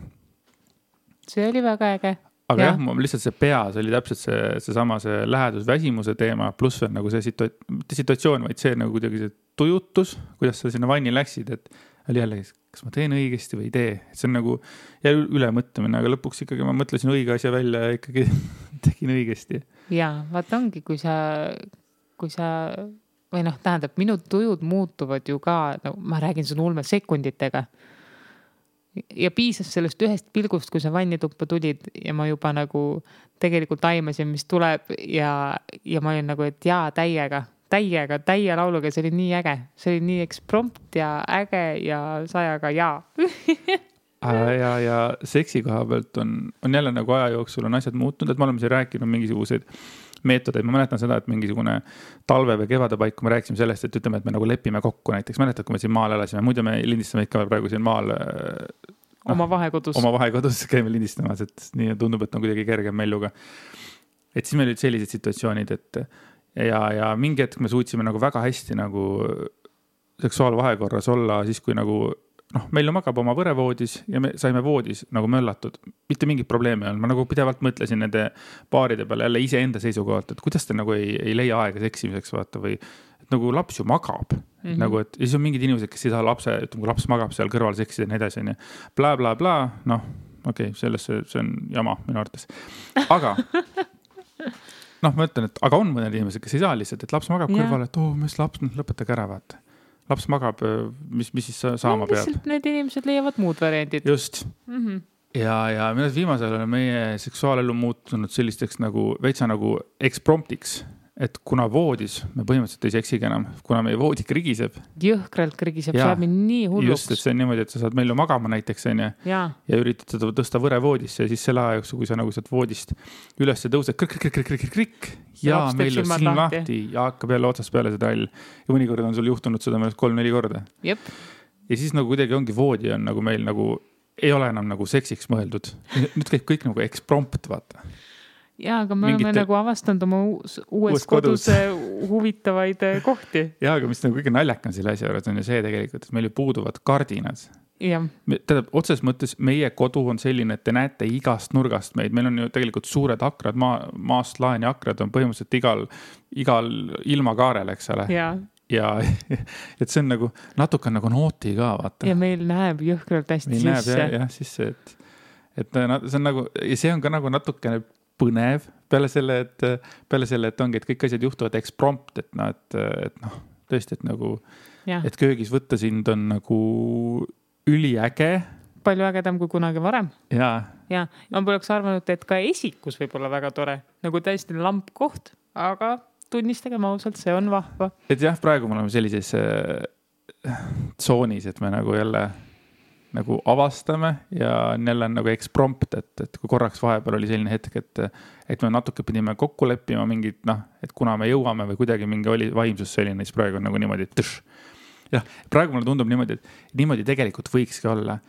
See oli väga äge. Aga jah, lihtsalt see peas oli täpselt seesama see lähedusväsimuse teema, pluss veel nagu see situatsioon, vaid see nagu kuidagi see tujutus, kuidas sa sinna vanni läksid, et oli jälle, kas ma teen õigesti või ei tee. Et see on nagu üle mõtlemine, aga lõpuks ikkagi ma mõtlesin õige asja välja ja ikkagi tegin õigesti. Jaa, vaat ongi, kui sa või tähendab, minu tujud muutuvad ju ka, ma räägin sun ulme sekunditega. Ja piisas sellest ühest pilgust, kui sa vannituppa tulid ja ma juba nagu tegelikult aimasin, mis tuleb ja ma olin nagu, et jaa, täie lauluga, see oli nii äge. See oli nii eksprompt ja äge ja sajaga jaa. ja seksi koha pealt on jälle nagu aja jooksul on asjad muutunud, et me oleme siin rääkinud mingisuguseid meetodeid. Ma mäletan seda, et mingisugune talve või kevade paik, kui me rääkisime sellest, et ütleme, et me nagu lepime kokku näiteks. Mäletad, kui me siin maal elasime, muidu me lindistame ikka praegu siin maal oma vahekodus käime lindistamas, et nii tundub, et on kuidagi kergem melluga. Et siis meil olid sellised situatsioonid, et ja mingi hetk me suutsime nagu väga hästi nagu seksuaalvahekorras olla siis, kui nagu meil ju magab oma võrevoodis ja me saime voodis nagu möllatud. Mitte mingit probleemi on. Ma nagu pidevalt mõtlesin nende paaride peale jälle ise enda seisukohalt, et kuidas te nagu ei leia aega seksimiseks vaata või et nagu laps ju magab. Nagu, et siis on mingid inimesed, kes ei saa lapse, ütleme, kui laps magab seal kõrval seksida ja nii edasi. Bla, okei, see on jama minu arvates. Aga ma ütlen, et aga on mõned inimesed, kes ei saa lihtsalt, et laps magab kõrval, et mis laps, lõpetage ära, vaata. Laps magab, mis siis saama peab. Lihtsalt need inimesed leiavad muud variandid. Just. Ja viimasel on meie seksuaalelu muutunud sellisteks nagu veitsa nagu ekspromptiks, et kuna voodis me põhimõtteliselt ei seksigi enam, kuna meie voodi krigiseb. Jõhkralt krigiseb, saab nii hulluks. Just, et see on niimoodi, et sa saad meil ju magama näiteks ja üritad seda tõsta võre voodisse ja siis selle aja jooksul, kui sa nagu saad voodist üles tõused, krikk ja meil on silm lahti ja hakkab jälle otsast peale see trall. Ja mõnikord on sul juhtunud seda 3-4 korda. Jep. Ja siis nagu kuidagi ongi voodi on nagu meil nagu ei ole enam nagu seksiks mõeldud. Nüüd käib kõik nagu eksprompt, vaata. Jaa, aga me oleme nagu avastanud oma uues kodus huvitavaid kohti. Jaa, aga mis nagu kõige naljakam selle asja juures on ju see tegelikult, et meil ju puuduvad kardinad. Tähendab, otses mõttes meie kodu on selline, et te näete igast nurgast meid. Meil on ju tegelikult suured akrad, maast laeni akrad on põhimõtteliselt igal ilmakaarel, eks ole. Ja et see on nagu natuke nagu nooti ka, vaata. Ja meil näeb jõhkralt hästi sisse. Meil näeb jah sisse, et see on nagu, ja see on ka nagu natukene põnev peale selle, et ongi, et kõik asjad juhtuvad eksprompt, et tõesti, et nagu, et köögis võtta sind on nagu üliäge. Palju ägedam kui kunagi varem. Ja. Ma poleks arvanud, et ka esikus võib olla väga tore, nagu täiesti lamp koht, aga tunnistage ausalt, see on vahva. Et jah, praegu me oleme sellises tsoonis, et me nagu jälle nagu avastame ja neil on nagu eksprompt, et kui korraks vahepeal oli selline hetk, et me natuke pidime kokku leppima mingid, et kuna me jõuame või kuidagi mingi oli vaimsus selline, siis praegu on nagu niimoodi, jah, praegu mulle tundub niimoodi, et niimoodi tegelikult võikski olla,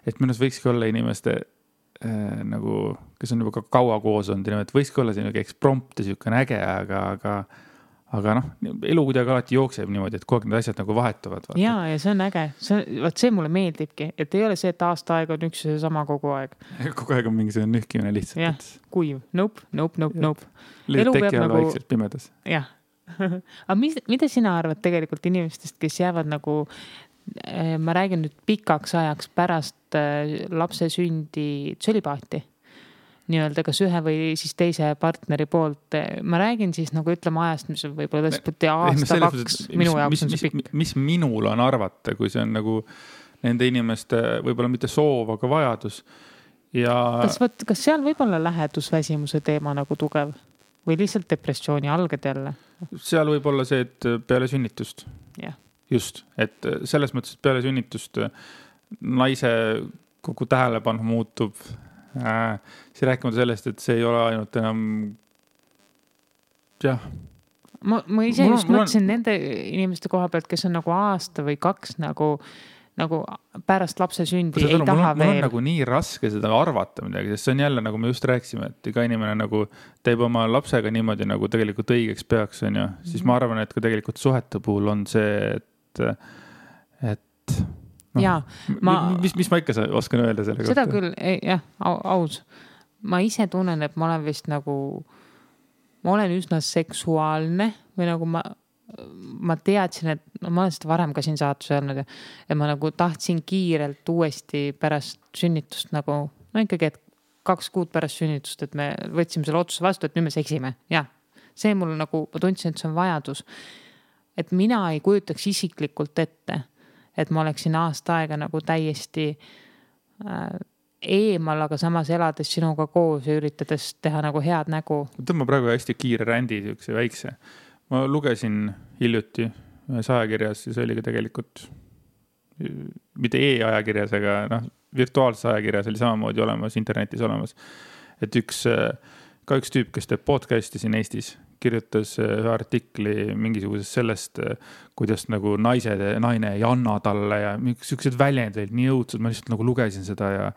et minu arust võikski olla inimeste nagu, kes on juba kaua koos olnud, et võikski olla selline eksprompt ja selline äge, aga elu kuidagi alati jookseb niimoodi, et kogu aeg need asjad nagu vahetuvad. Ja see on äge. See mulle meeldibki, et ei ole see, et aasta aeg on üks ja sama kogu aeg. Kogu aeg on mingisugune nühkimine lihtsalt. Jah, kuiv. Nope. Elu teki all vaikselt pimedas. Jah. Aga mida sina arvad tegelikult inimestest, kes jäävad nagu, ma räägin nüüd pikaks ajaks pärast lapse sündi tsölibaati? Nii-öelda kas ühe või siis teise partneri poolt. Ma räägin siis nagu ütleme ajast, mis on võib-olla aasta, 2, minu jaoks on see pikk. Mis minul on arvata, kui see on nagu nende inimeste võib-olla mitte soov, aga vajadus. Ja... Kas seal võib-olla lähedusväsimuse teema nagu tugev või lihtsalt depressiooni alged jälle? Seal võib olla see, et peale sünnitust. Yeah. Just, et selles mõttes, et peale sünnitust naise kogu tähelepanu muutub. Siis rääkimata sellest, et see ei ole ainult enam jah. Ma ise just mõtlesin nende inimeste koha pealt, kes on nagu aasta või 2 nagu pärast lapse sündi ei taha veel. Mul on nagu nii raske seda arvata midagi, sest see on jälle, nagu me just rääkisime, et iga inimene nagu teeb oma lapsega niimoodi, nagu tegelikult õigeks peaks, on ju. Siis ma arvan, et ka tegelikult suhete puhul on see, et ja, mis ma ikka oskan öelda selle kohta? Seda küll, jah, aus. Ma ise tunnen, et ma olen vist nagu, ma olen üsna seksuaalne või nagu ma teadsin, et ma olen seda varem ka siin saatus öelnud ja ma nagu tahtsin kiirelt uuesti pärast sünnitust nagu, ikkagi, et 2 kuud pärast sünnitust, et me võtsime selle otsuse vastu, et nüüd me seksime. Jah, see mul nagu, ma tundsin, et see on vajadus. Et mina ei kujutaks isiklikult ette, et ma oleksin aasta aega nagu täiesti eemal, aga samas elades sinuga koos ja üritades teha nagu head nägu. Tõmba praegu hästi kiire rändi, väikse. Ma lugesin hiljuti ühes ajakirjas ja see oli ka tegelikult mitte e-ajakirjas, aga virtuaalses ajakirjas oli samamoodi olemas, internetis olemas. Et üks tüüp, kes teeb podcasti siin Eestis, kirjutas ühe artikli mingisugusest sellest, kuidas nagu naine ei anna talle ja sellised väljendid nii õudsed, ma lihtsalt nagu lugesin seda ja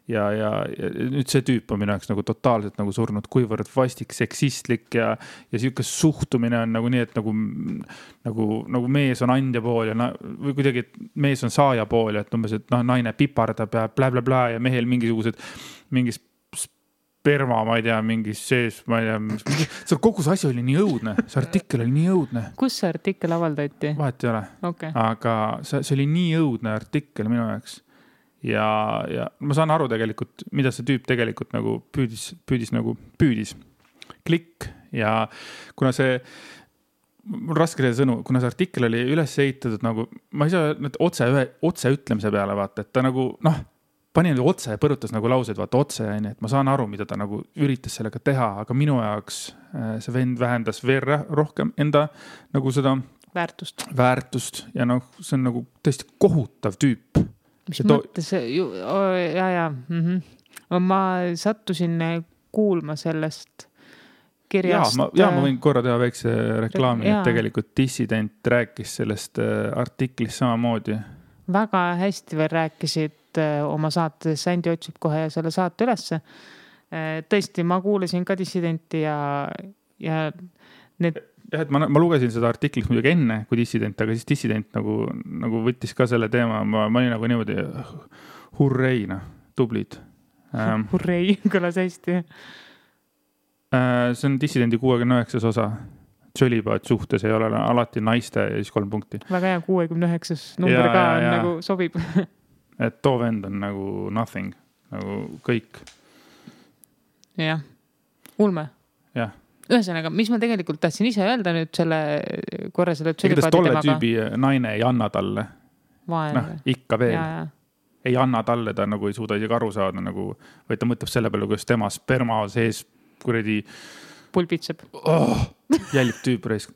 nüüd see tüüp on minu jaoks nagu totaalselt nagu surnud, kuivõrd vastik, seksistlik ja selline suhtumine on nagu nii, et nagu mees on andja pool ja või kuidagi, et mees on saaja pool ja et umbes, et naine pipardab ja bla ja mehel mingis sperma, ma ei tea, mingis sees, ma ei tea, see kogu see asi oli nii õudne, see artikkel oli nii õudne. Kus see artikkel avaldati? Vahet ei ole, okay. Aga see oli nii õudne artikkel minu jaoks ja ma saan aru tegelikult, mida see tüüp tegelikult nagu püüdis klikk ja kuna see mul raske see sõnu, kuna see artikkel oli üles ehitatud nagu, ma ei saa otse ütlemise peale vaata, et ta nagu pani nüüd otse ja põrutas nagu laused, vaata otse, et ma saan aru, mida ta nagu üritas sellega teha, aga minu jaoks see vend vähendas veel rohkem enda nagu seda väärtust ja see on nagu tõesti kohutav tüüp. Mis mõttes, ma sattusin kuulma sellest kirjast. Ma võin korra teha väikse reklaami, et tegelikult Dissident rääkis sellest artiklist samamoodi. Väga hästi veel rääkisid oma saates, Sändi otsib kohe selle saate ülesse. Tõesti, ma kuulasin ka Dissidenti ja need... Jah, et ma lugesin seda artiklit muidugi enne kui Dissident, aga siis Dissident nagu võttis ka selle teema, ma olin nagu niimoodi hurreina, tublid. Hurrei, kõlas hästi. See on Dissidendi 69. osa. Tsölibaat suhtes ei ole alati naiste ja siis 3 punkti. Väga hea, 69. number ka nagu sobib. Et too vend on nagu nothing, nagu kõik. Jah, ulme. Jah. Ühesõnaga, mis ma tegelikult tahtsin ise öelda nüüd selle tsölibaati temaga. Tolle tüübi naine ei anna talle. Ikka veel. Ja. Ei anna talle, ta nagu ei suuda isegi aru saada, nagu, või ta mõtleb selle peale, kuidas tema sperma sees kuradi pulbitseb. Jälib tüüp raisk.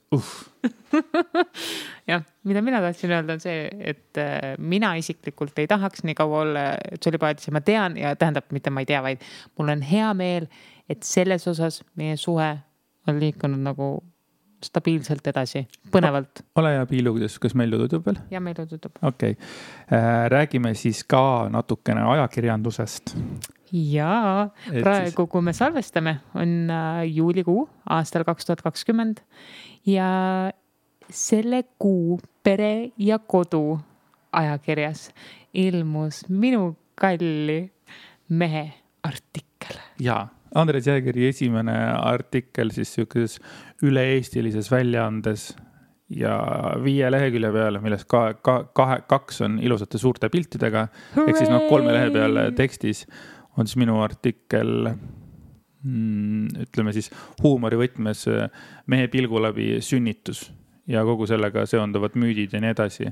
Jah, mida mina tahtsin öelda on see, et mina isiklikult ei tahaks nii kaua olla tšolipaadis ja ma tean ja tähendab, mitte ma ei tea, vaid mul on hea meel, et selles osas meie suhe on liikunud nagu stabiilselt edasi, põnevalt. Ole hea Piilu, kas meil tutub veel? Ja meil tutub. Okei. Räägime siis ka natukene ajakirjandusest. Jaa, praegu kui me salvestame on juulikuu aastal 2020 ja selle kuu Pere ja Kodu ajakirjas ilmus minu kalli mehe artikkel. Jaa. Andres Jäägeri esimene artikkel siis sellises üle-eestilises väljaandes ja 5 lehekülje peale, millest 2 on ilusate suurte piltidega. Ehk siis 3 lehe peal tekstis on siis minu artikkel, ütleme siis huumorivõtmes mehe pilgu läbi sünnitus ja kogu sellega seonduvad müüdid ja nii edasi.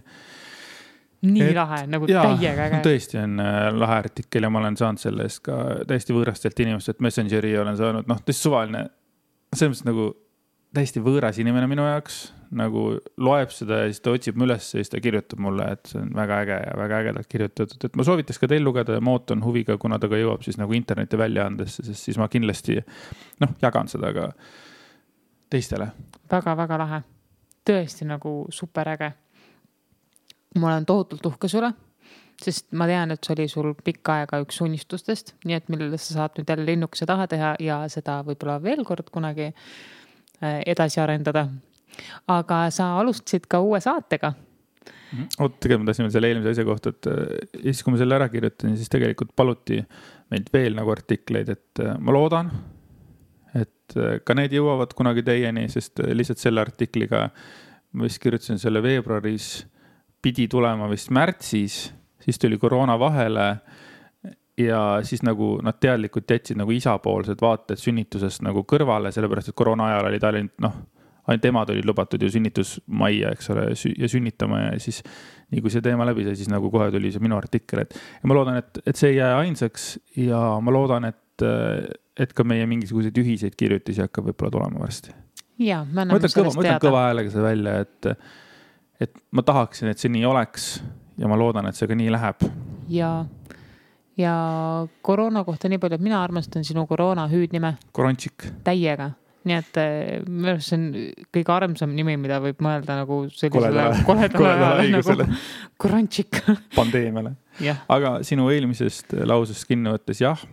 Nii lahe, nagu täiega äge. Tõesti on lahe artikkel ja ma olen saanud selle eest ka täiesti võõrastelt inimestelt Messengeri olen saanud, tõesti suvaline, selles mõttes nagu täiesti võõras inimene minu jaoks, nagu loeb seda ja siis ta otsib üles ja siis ta kirjutab mulle, et see on väga äge ja väga ägedalt kirjutatud, et ma soovitas ka teil lugeda ja ma ootan huviga, kuna ta ka jõuab siis nagu interneti väljaandesse, sest siis ma kindlasti jagan seda ka teistele. Väga-väga lahe, tõesti nagu super äge. Ma olen tohutult uhke sulle, sest ma tean, et see oli sul pikka aega üks unistustest, nii et millele sa saad nüüd jälle linnukese taha teha ja seda võib-olla veel kord kunagi edasi arendada. Aga sa alustasid ka uue saatega. Tegelikult ma tahtsin veel selle eelmise asja kohta, et siis kui ma selle ära kirjutasin, siis tegelikult paluti meilt veel nagu artikleid, et ma loodan, et ka need jõuavad kunagi teieni, sest lihtsalt selle artikliga ma vist kirjutasin selle veebruaris pidi tulema vist märtsis, siis tuli koroona vahele ja siis nagu nad teadlikult jätsid nagu isapoolsed vaated sünnitusest nagu kõrvale, sellepärast et koroona ajal oli ta ainult emad olid lubatud ju sünnitusmajja, eks ole, ja sünnitama ja siis nii kui see teema läbi sai, siis nagu kohe tuli see minu artikkel, ja ma loodan, et see ei jää ainsaks ja ma loodan, et ka meie mingisuguseid ühiseid kirjutisi hakkab võib-olla tulema varsti. Ja, ma ütlen kõva häälega see välja, et ma tahaksin, et see nii oleks ja ma loodan, et see ka nii läheb. Ja koroona kohta nii palju, et mina armastan sinu koroona hüüdnime. Korončik. Täiega. Nii et see on kõige armsam nimi, mida võib mõelda nagu sellisele koledale nagu Korončik. Pandeemiale. Aga sinu eelmisest lausest kinni võttes, jah.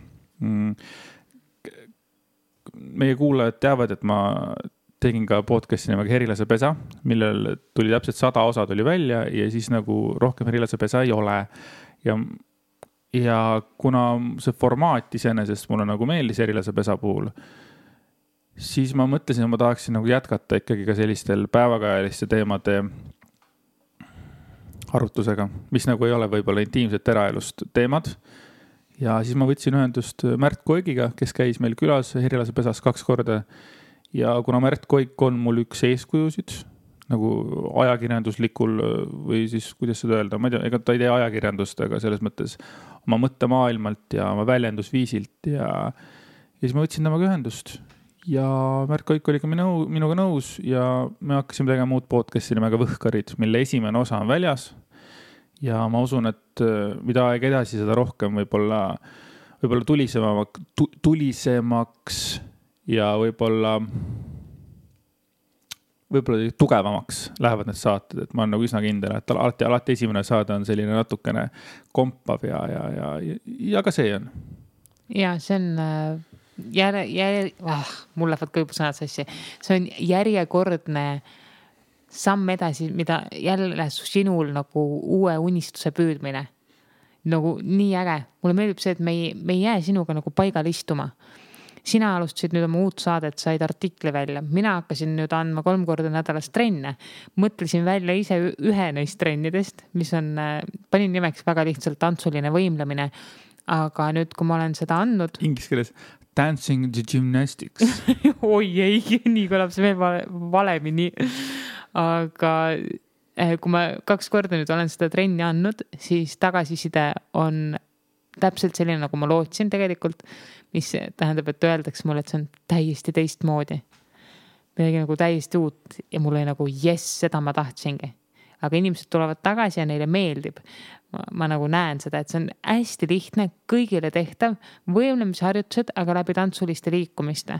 Meie kuulajad teavad, et ma tegin ka podcasti nimega Herilase pesa, millel tuli täpselt 100 osa tuli välja ja siis nagu rohkem Herilase pesa ei ole. Ja kuna see formaat iseenesest mulle nagu meeldis Herilase pesa puhul, siis ma mõtlesin, et ma tahaksin nagu jätkata ikkagi ka sellistel päevakajaliste teemade arutusega, mis nagu ei ole võib-olla intiimset eraelust teemad. Ja siis ma võtsin ühendust Märt Koigiga, kes käis meil külas Herilase pesas 2 korda. Ja kuna Märt Koik on mul üks eeskujusid, nagu ajakirjanduslikul või siis, kuidas seda öelda, ma ei tea, ega ta ei tee ajakirjandust, aga selles mõttes oma mõttemaailmalt ja oma väljendusviisilt ja siis ma võtsin temaga ühendust ja Märt Koik oli ka minuga nõus ja me hakkasime tegema muud podcasti nimega Võhkarid, mille esimene osa on väljas ja ma usun, et mida aeg edasi, seda rohkem võib-olla tulisemaks ja võib-olla tugevamaks lähevad need saated, et ma olen nagu üsna kindel, et alati esimene saade on selline natukene kompav ja ka see on. Ja see on mul lähevad kõibusõnad sassi. See on järjekordne samm edasi, mida jälle sinul nagu uue unistuse püüdmine. Nagu nii äge. Mulle meeldib see, et me ei jää sinuga nagu paigal istuma. Sina alustasid nüüd oma uut saadet, said artikli välja. Mina hakkasin nüüd andma 3 korda nädalas trenne. Mõtlesin välja ise ühe neist trennidest, mis on, panin nimeks väga lihtsalt tantsuline võimlemine. Aga nüüd, kui ma olen seda andnud... Inglis keeles dancing the gymnastics. Oi ei, nii kõlab see veel valemini. Aga kui ma 2 korda nüüd olen seda trenni andnud, siis tagasiside on täpselt selline, nagu ma lootsin tegelikult, mis tähendab, et öeldakse mulle, et see on täiesti teistmoodi. midagi nagu täiesti uut ja mul oli nagu jess, seda ma tahtsingi. Aga inimesed tulevad tagasi ja neile meeldib. Ma nagu näen seda, et see on hästi lihtne, kõigile tehtav, võimlemisharjutused, aga läbi tantsuliste liikumiste.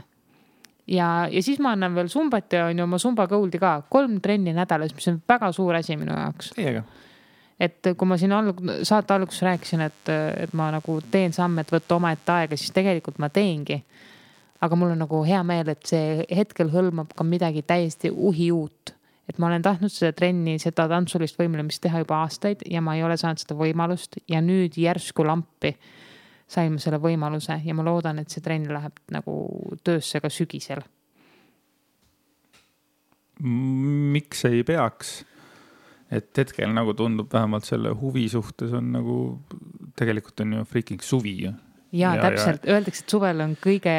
Ja siis ma annan veel sumbat ja on ju oma sumba Goldi ka 3 trenni nädalas, mis on väga suur asi minu jaoks. Teiega. Et kui ma siin saate alguses rääkisin, et ma nagu teen samme, et võtta oma ette aega, siis tegelikult ma teengi. Aga mul on nagu hea meel, et see hetkel hõlmab ka midagi täiesti uhi uut. Et ma olen tahtnud seda trenni, seda tantsulist võimlemist teha juba aastaid ja ma ei ole saanud seda võimalust ja nüüd järsku lampi sain ma selle võimaluse ja ma loodan, et see trenn läheb nagu töösse ka sügisel. Miks ei peaks? Et hetkel nagu tundub vähemalt selle huvi suhtes on nagu, tegelikult on ju freaking suvi. Ja täpselt, öeldakse, et suvel on kõige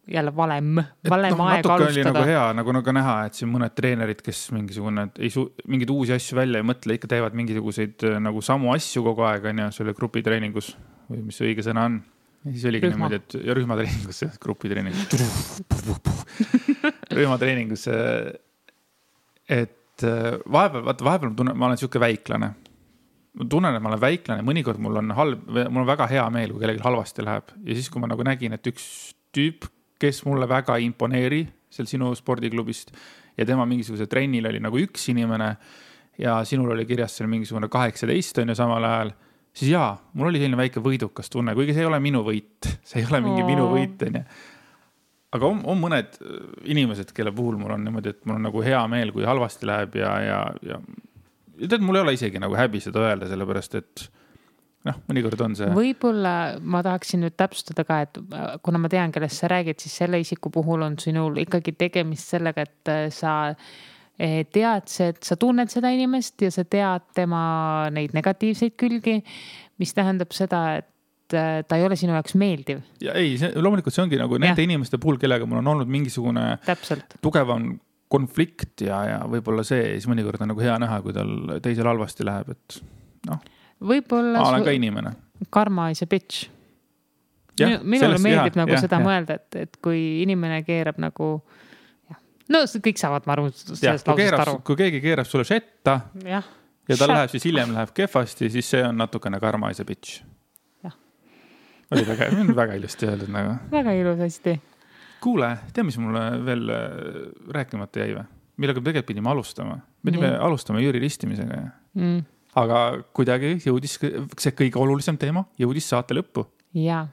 jälle valem aeg natuke alustada. Oli nagu hea, nagu näha, et siin mõned treenerid, kes mingeid uusi asju välja ei mõtle, ikka teevad mingisuguseid nagu samu asju kogu aeg, on ja selle grupitreeningus või mis õige sõna on. Ja siis oligi niimoodi, et rühmatreeningus, rühmatreeningus, et vahepeal ma olen siuke väiklane. Ma tunnen, et ma olen väiklane, mõnikord mul on väga hea meel, kui kellelgi halvasti läheb. Ja siis, kui ma nagu nägin, et üks tüüp, kes mulle väga imponeeri seal sinu spordiklubist ja tema mingisuguse trennil oli nagu üks inimene ja sinul oli kirjas seal mingisugune 18 on ju samal ajal, siis jaa, mul oli selline väike võidukas tunne, kuigi see ei ole minu võit, see ei ole mingi minu võit, on ju. Aga on mõned inimesed, kelle puhul mul on niimoodi, et mul on nagu hea meel, kui halvasti läheb ja tead, mul ei ole isegi nagu häbi seda öelda, sellepärast, et mõnikord on see. Võibolla ma tahaksin nüüd täpsustada ka, et kuna ma tean, kellest sa räägid, siis selle isiku puhul on sinul ikkagi tegemist sellega, et sa tead, et sa tunned seda inimest ja sa tead tema neid negatiivseid külgi, mis tähendab seda, et ta ei ole sinu jaoks meeldiv. Ja ei, loomulikult see ongi nagu nende inimeste puhul, kellega mul on olnud mingisugune tugevam konflikt ja võib-olla see, siis mõnikord on nagu hea näha, kui tal teisel halvasti läheb, et võib-olla ma olen ka inimene. Karma is a bitch. Minule meeldib nagu seda mõelda, et kui inimene keerab nagu, kõik saavad ma aru sellest lausest aru. Kui keegi keerab sulle šetta ja tal läheb, siis hiljem läheb kehvasti, siis see on natukene karma is a bitch. Oli väga ilusti öeldud nagu. Väga ilus hästi. Kuule, tea, mis mulle veel rääkimata jäi või? Millega me tegelikult pidime alustama. Me pidime alustama Jüri ristimisega. Aga kuidagi jõudis see kõige olulisem teema, jõudis saate lõppu. Ja,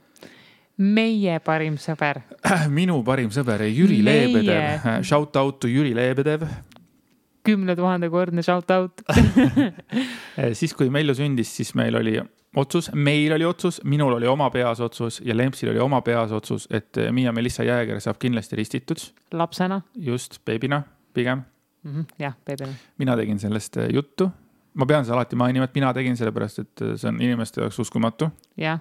meie parim sõber. Minu parim sõber, Jüri Leebedev. Shout out to Jüri Leebedev. 10 000 kordne shout out. Siis, kui Melju sündis, siis meil oli otsus, minul oli oma peas otsus ja Lempsil oli oma peas otsus, et Miia Melissa Jääger saab kindlasti ristitud. Lapsena. Just, beebina, pigem. Jah, beebina. Mina tegin sellest juttu. Ma pean seda alati mainima, et mina tegin sellepärast, et see on inimeste jaoks uskumatu. Jah.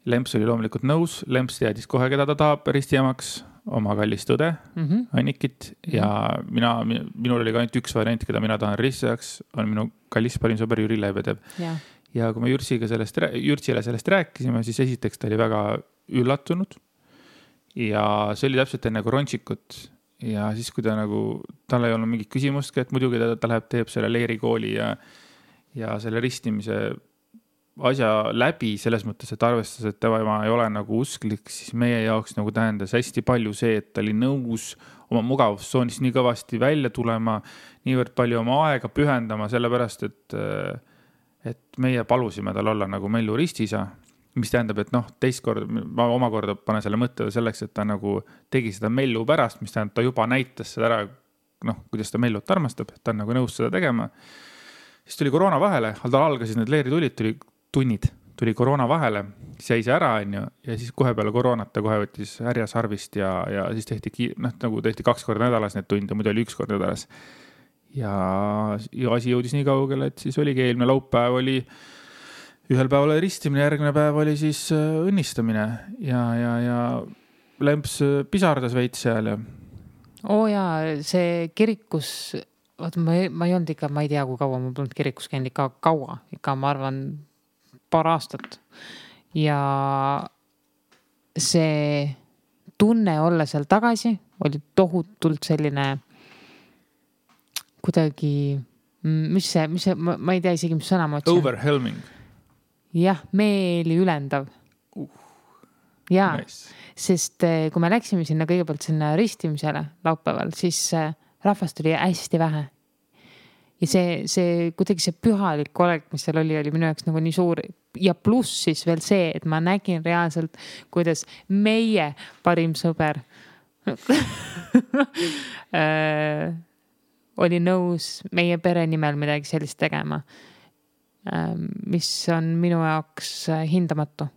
Lemps oli loomulikult nõus. Lemps teadis kohe, keda ta tahab ristijamaks, oma kallist õde, Annikit. Ja minul oli ka ainult üks variant, keda mina tahan ristijaks, on minu kallis parim sõber Jüri Leebedev. Ja kui me Jürsile sellest rääkisime, siis esiteks ta oli väga üllatunud ja see oli täpselt enne Koronšikut ja siis, kui ta nagu, tal ei olnud mingit küsimustki, et muidugi ta läheb, teeb selle leerikooli ja selle ristimise asja läbi selles mõttes, et arvestas, et tema ei ole nagu usklik, siis meie jaoks nagu tähendas hästi palju see, et ta oli nõus oma mugavustsoonist nii kõvasti välja tulema, niivõrd palju oma aega pühendama, sellepärast, et meie palusime tal olla nagu Melju ristisa, mis tähendab, et teist kord, ma omakorda panen selle mõtte selleks, et ta nagu tegi seda Melju pärast, mis tähendab, ta juba näitas seda ära, kuidas ta Meljut armastab, et ta on nagu nõus seda tegema. Siis tuli koroona vahele, tal algasid need leeritulid, tuli koroona vahele, siis jäi see ära, ja siis kohe peale koroonat ta kohe võttis härjasarvist ja siis tehti 2 korda nädalas need tunde, muidu oli 1 kord nädalas. Ja asi jõudis nii kaugele, et siis oligi eelmine laupäev oli ühel päeval ristimine, järgmine päev oli siis õnnistamine ja Lemps pisardas veits seal. See kirikus, ma ei olnud ikka, ma ei tea, kui kaua ma polnud kirikus käinud ikka kaua, ikka ma arvan paar aastat. Ja see tunne olla seal tagasi oli tohutult selline kuidagi, mis see, ma ei tea isegi, mis sõna ma otsin. Overwhelming. Jah, meeli ülendav. Jaa, nice. Sest kui me läksime sinna kõigepealt sinna ristimisele laupäeval, siis rahvast oli hästi vähe. Ja see kuidagi see pühalik olek, mis seal oli minu jaoks nagu nii suur. Ja pluss siis veel see, et ma nägin reaalselt, kuidas meie parim sõber oli nõus meie pere nimel midagi sellist tegema, mis on minu jaoks hindamatu.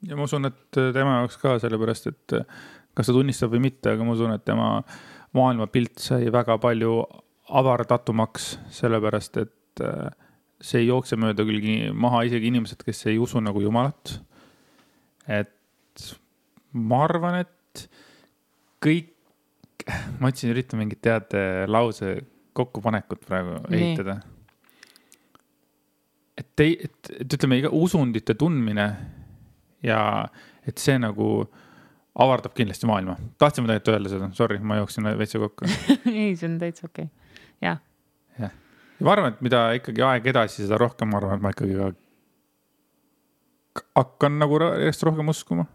Ja ma usun, et tema jaoks ka sellepärast, et kas ta tunnistab või mitte, aga ma usun, et tema maailmapilt sai väga palju avardatumaks, sellepärast, et see ei jookse mööda küll maha isegi inimesed, kes ei usu nagu Jumalat. Et ma arvan, et kõik, ma otsin üritan mingit teate lause kokkupanekut praegu ehitada. Et ütleme, iga usundite tundmine ja et see nagu avardab kindlasti maailma. Tahtsime tegelikult öelda seda. Sorry, ma jooksin veitsa kokku. Ei, see on täitsa okei. Jah. Ja ma arvan, et mida ikkagi aeg edasi, seda rohkem ma arvan, et ma ikkagi hakkan nagu järjest rohkem uskuma.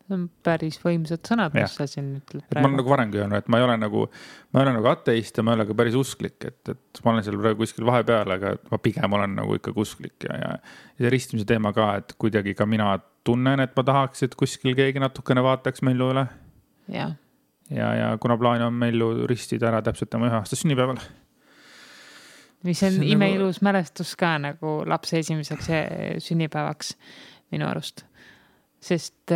See on päris võimsad sõnad, mis sa siin ütled praegu. Ma olen nagu varemgi öelnud, et ma ei ole nagu ateist ja ma ei ole ka päris usklik, et ma olen seal praegu kuskil vahepeal, aga ma pigem olen nagu ikkagi usklik ja see ristimise teema ka, et kuidagi ka mina tunnen, et ma tahaks, et kuskil keegi natukene vaataks Mellu üle. Ja kuna plaan on Mellu ristida ära täpselt tema 1 aasta sünnipäeval. Mis on imeilus mälestus ka nagu lapse esimeseks sünnipäevaks minu arust. Sest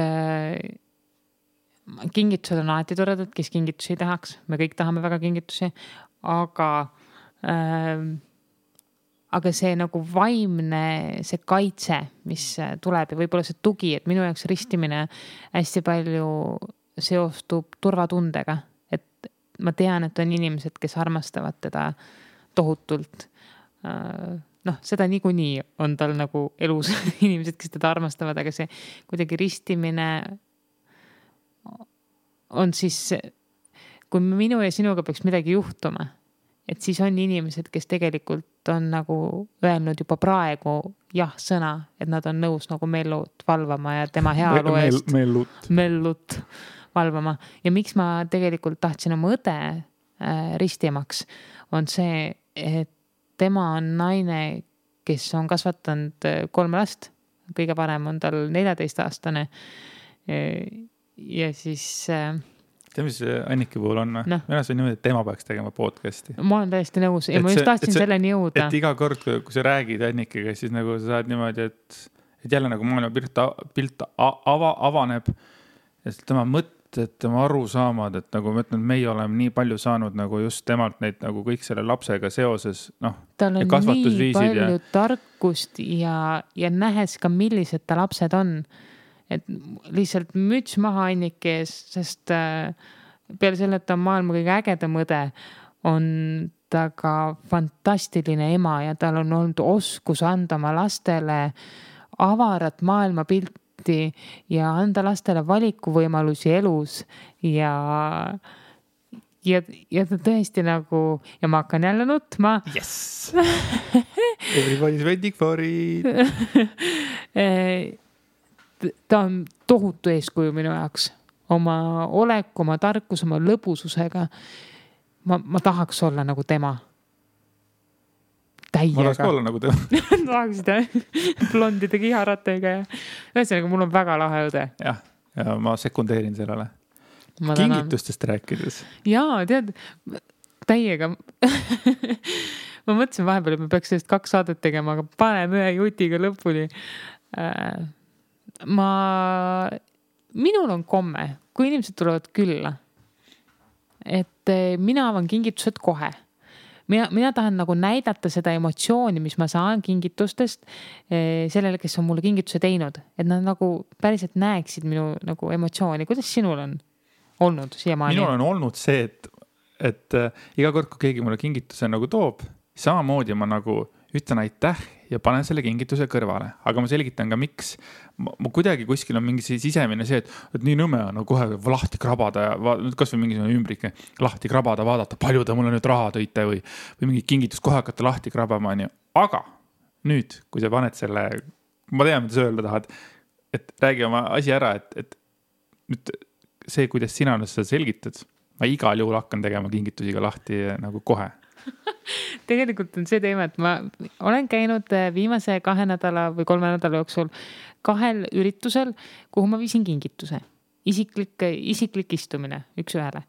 kingitused on alati toredad, kes kingitusi tahaks. Me kõik tahame väga kingitusi, aga see nagu vaimne, see kaitse, mis tuleb ja võib-olla see tugi, et minu jaoks ristimine hästi palju seostub turvatundega. Et ma tean, et on inimesed, kes armastavad teda tohutult. Seda niikuinii on tal nagu elus inimesed, kes teda armastavad, aga see kuidagi ristimine on siis, kui minu ja sinuga peaks midagi juhtuma, et siis on inimesed, kes tegelikult on nagu öelnud juba praegu sõna, et nad on nõus nagu Mellut valvama ja tema heaolu eest Mellut valvama. Ja miks ma tegelikult tahtsin oma õde ristimaks, on see, et tema on naine, kes on kasvatanud 3 last. Kõige parem on tal 14-aastane. Ja siis... Tead, mis Anniki puhul on? Mina see on niimoodi, et tema peaks tegema podcasti. Ma olen täiesti nõus. Ja ma just tahtsin selleni jõuda. Et iga kord, kui sa räägid Annikiga, siis nagu sa saad niimoodi, et jälle nagu maailma pilt avaneb. Ja tema mõtted, tema arusaamad, et nagu ma ütlen, meie oleme nii palju saanud nagu just temalt neid nagu kõik selle lapsega seoses, tal on nii palju tarkust ja nähes ka, millised ta lapsed on. Et lihtsalt müts maha Anniki ees, sest peale selle, et ta on maailma kõige ägedam õde, on ta ka fantastiline ema ja tal on olnud oskus anda oma lastele avarat maailmapilti ja anda lastele valikuvõimalusi elus ja ta tõesti nagu, ja ma hakkan jälle nutma. Yes! Everybody's waiting for it. Ta on tohutu eeskuju minu jaoks. Oma olek, oma tarkus, oma lõbususega. Ma tahaks olla nagu tema. Täiega. Ma tahaks olla nagu tema. Tahaksid blondide kiharatega ja ühesõnaga, mul on väga lahe õde. Ja ma sekundeerin sellele. Kingitustest rääkides. Jaa, tead, täiega. Ma mõtlesin vahepeal, et me peaks sellest 2 saadet tegema, aga paneme 1 jutiga lõpuni. Minul on komme, kui inimesed tulevad külla, et mina avan kingitused kohe. Mina tahan nagu näidata seda emotsiooni, mis ma saan kingitustest sellele, kes on mulle kingituse teinud. Et nad nagu päriselt näeksid minu nagu emotsiooni. Kuidas sinul on olnud siiamaani? Minul on olnud see, et iga kord, kui keegi mulle kingituse nagu toob, samamoodi ma nagu ütlen aitäh ja panen selle kingituse kõrvale, aga ma selgitan ka, miks. Ma kuidagi kuskil on mingi sisemine see, et nii nõme on kohe lahti krabada ja kas või mingisugune ümbrike lahti krabada, vaadata, palju ta mulle nüüd raha tõite või mingi kingitus kohe hakata lahti krabama. Aga nüüd, kui sa paned selle, ma tean, mida sa öelda tahad, et räägi oma asi ära, et nüüd see, kuidas sina nüüd seda selgitad, ma igal juhul hakkan tegema kingitusiga lahti nagu kohe. Tegelikult on see teema, et ma olen käinud viimase 2 nädala või 3 nädala jooksul 2 üritusel, kuhu ma viisin kingituse. Isiklik istumine üks ühele.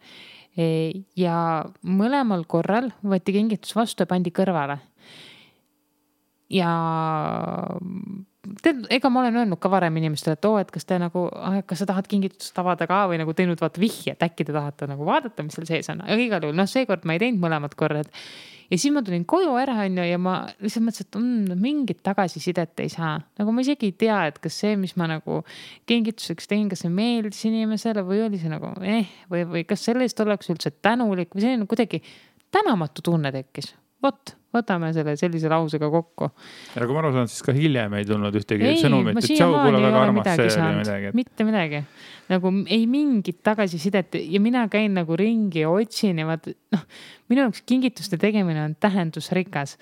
Ja mõlemal korral võeti kingitus vastu ja pandi kõrvale. Ja ega ma olen öelnud ka varem inimestele, et kas te nagu, kas sa tahad kingitust avada ka või nagu teinud vaata vihje, et äkki te tahate nagu vaadata, mis seal sees on. Aga igal juhul, seekord ma ei teinud mõlemad korrad. Ja siis ma tulin koju ära ja ma lihtsalt mõtlesin, et mingit tagasisidet ei saa. Nagu ma isegi ei tea, et kas see, mis ma nagu kingituseks tegin, kas see meeldis inimesele või oli see nagu või kas sellest oleks üldse tänulik või selline kuidagi tänamatu tunne tekkis. Võtame selle sellise lausega kokku. Ja kui ma aru saan, siis ka hiljem ei tulnud ühtegi sõnumit, et tšau, kuule väga armas see oli midagi. Mitte midagi. Nagu ei mingit tagasisidet ja mina käin nagu ringi ja otsin ja minu jaoks kingituste tegemine on tähendusrikas.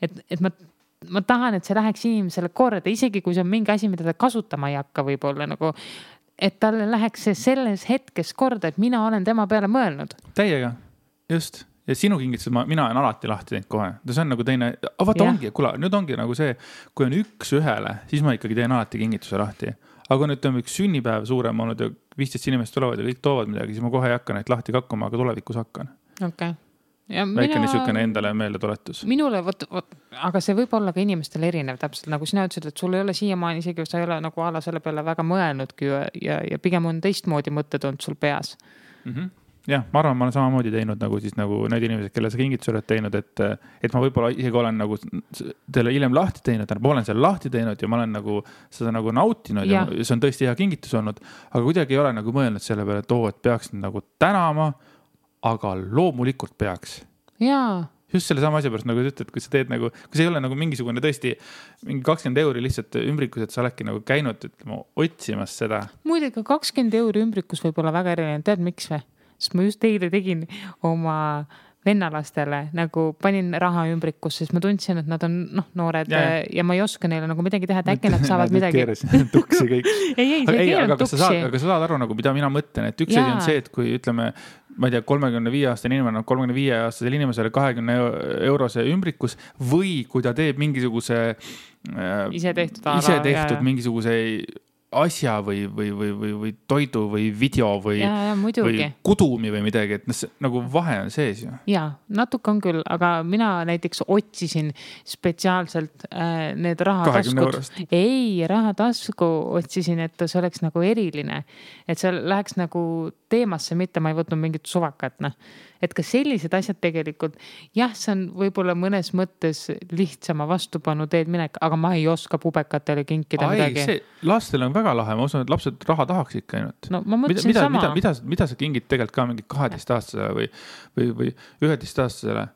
Et ma tahan, et see läheks inimesele korda, isegi kui see on mingi asi, mida ta kasutama ei hakka võib-olla nagu, et talle läheks see selles hetkes korda, et mina olen tema peale mõelnud. Täiega, just. Ja sinu kingitused, mina olen alati lahti teinud kohe. See on nagu teine, ongi, nüüd ongi nagu see, kui on üks ühele, siis ma ikkagi teen alati kingituse lahti. Aga nüüd on üks sünnipäev suurem olnud ja 15 inimest tulevad ja kõik toovad midagi, siis ma kohe ei hakka neid lahti kakkuma, aga tulevikus hakkan. Okay. Väike niisugune endale meelde tuletus. Minule, aga see võib olla ka inimestel erinev täpselt, nagu sina ütlesid, et sul ei ole siiamaani isegi, sa ei ole nagu ala selle peale väga mõelnudki ja pigem on teistmoodi mõtted olnud sul peas. Jah, ma arvan, ma olen samamoodi teinud nagu siis nagu need inimesed, kelle sa kingitus oled teinud, et ma võib-olla isegi olen nagu teile hiljem lahti teinud, ma olen seal lahti teinud ja ma olen nagu seda nagu nautinud ja see on tõesti hea kingitus olnud, aga kuidagi ei ole nagu mõelnud selle peale, et peaks nagu tänama, aga loomulikult peaks. Jaa. Just selle sama asja pärast, nagu ütled, kui sa teed nagu, kui see ei ole nagu mingisugune tõesti mingi 20 € lihtsalt ümbrikus, et sa oledki nagu käinud otsimas seda. Muidugi 20 € ümbrikus võib olla väga erinev, tead miks või? Sest ma just eile tegin oma vennalastele, nagu panin raha ümbrikus, sest ma tundsin, et nad on noored ja ma ei oska neile nagu midagi teha, et äkki nad saavad midagi. Tuksi kõik. Aga sa saad aru, nagu, mida mina mõtlen, et üks asi on see, et kui ütleme, ma ei tea, 35-aastane inimene on 35-aastasel inimesele 20 € ümbrikus või kui ta teeb mingisuguse ise tehtud mingisuguse asja või toidu või video või kudumi või midagi, et nagu vahe on sees ju. Jaa, natuke on küll, aga mina näiteks otsisin spetsiaalselt need rahataskud. Rahatasku otsisin, et see oleks nagu eriline, et see läheks nagu teemasse, mitte ma ei võtnud mingit suvakat. Et ka sellised asjad tegelikult, jah, see on võib-olla mõnes mõttes lihtsama vastupanu teed minek, aga ma ei oska pubekatele kinkida midagi. Lastel on väga lahe, ma usun, et lapsed raha tahaks ikka ainult. No ma mõtlesin sama. Mida sa kingid tegelikult ka mingi 12-aastasele või 11-aastasele?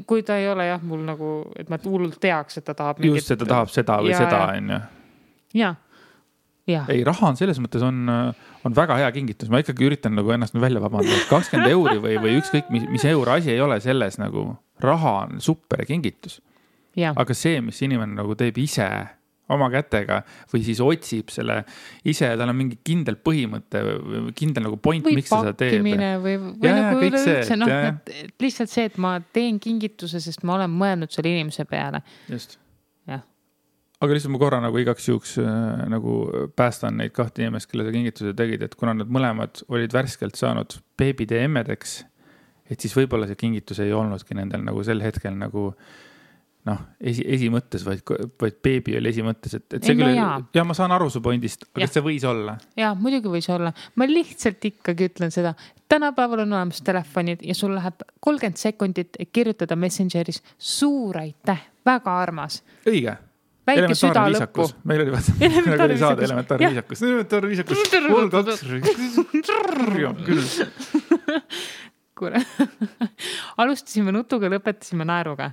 Kui ta ei ole jah, mul nagu, et ma hullult teaks, et ta tahab mingit... Just, et ta tahab seda või seda, on ju. Jaa. Ja. Ei, raha on selles mõttes on väga hea kingitus. Ma ikkagi üritan nagu ennast välja vabandada. 20 € või ükskõik mis euro asi ei ole selles nagu raha on super kingitus. Ja. Aga see, mis inimene nagu teeb ise oma kätega või siis otsib selle ise, tal on mingi kindel põhimõte või kindel nagu point, miks ta seda teeb. Või pakkimine või nagu üleüldse, et lihtsalt see, et ma teen kingituse, sest ma olen mõelnud selle inimese peale. Just. Jah. Aga lihtsalt ma korra nagu igaks juhuks nagu päästan neid 2 inimest, kelle sa kingituse tegid, et kuna nad mõlemad olid värskelt saanud beebide emmedeks, et siis võib-olla see kingitus ei olnudki nendel nagu sel hetkel nagu esimõttes, vaid beebi oli esimõttes, et see küll, ja ma saan aru su pointist, aga see võis olla. Jaa, muidugi võis olla. Ma lihtsalt ikkagi ütlen seda, tänapäeval on olemas telefonid ja sul läheb 30 sekundit kirjutada Messengeris suur aitäh, väga armas. Õige. Väike süda lõppu. Meil oli saada elementaarviisakus. Mul 2. Küll. Alustasime nutuga, lõpetasime naeruga.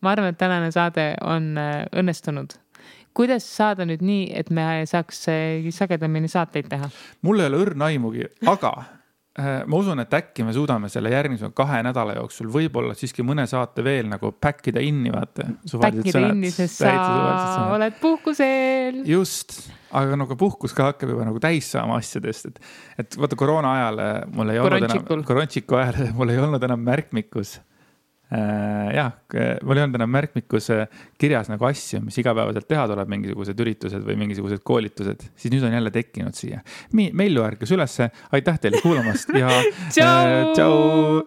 ma arvan, et tänane saade on õnnestunud. Kuidas saada nüüd nii, et me saaks sagedamini saateid teha? Mul ei ole õrna aimugi, aga ma usun, et äkki me suudame selle järgmise 2 nädala jooksul võib-olla siiski mõne saate veel nagu backida inni, vaata. Backida inni, sest sa oled puhkusel. Just, aga nagu puhkus ka hakkab juba nagu täis saama asjadest. Et vaata koroona ajal mul ei olnud enam, korontsiku ajal mul ei olnud enam märkmikus. Jah, mul ei olnud enam märkmikus kirjas nagu asju, mis igapäevaselt teha tuleb, mingisugused üritused või mingisugused koolitused, siis nüüd on jälle tekkinud siia. Meilju ärkas ülesse, aitäh teile kuulamast ja tšau!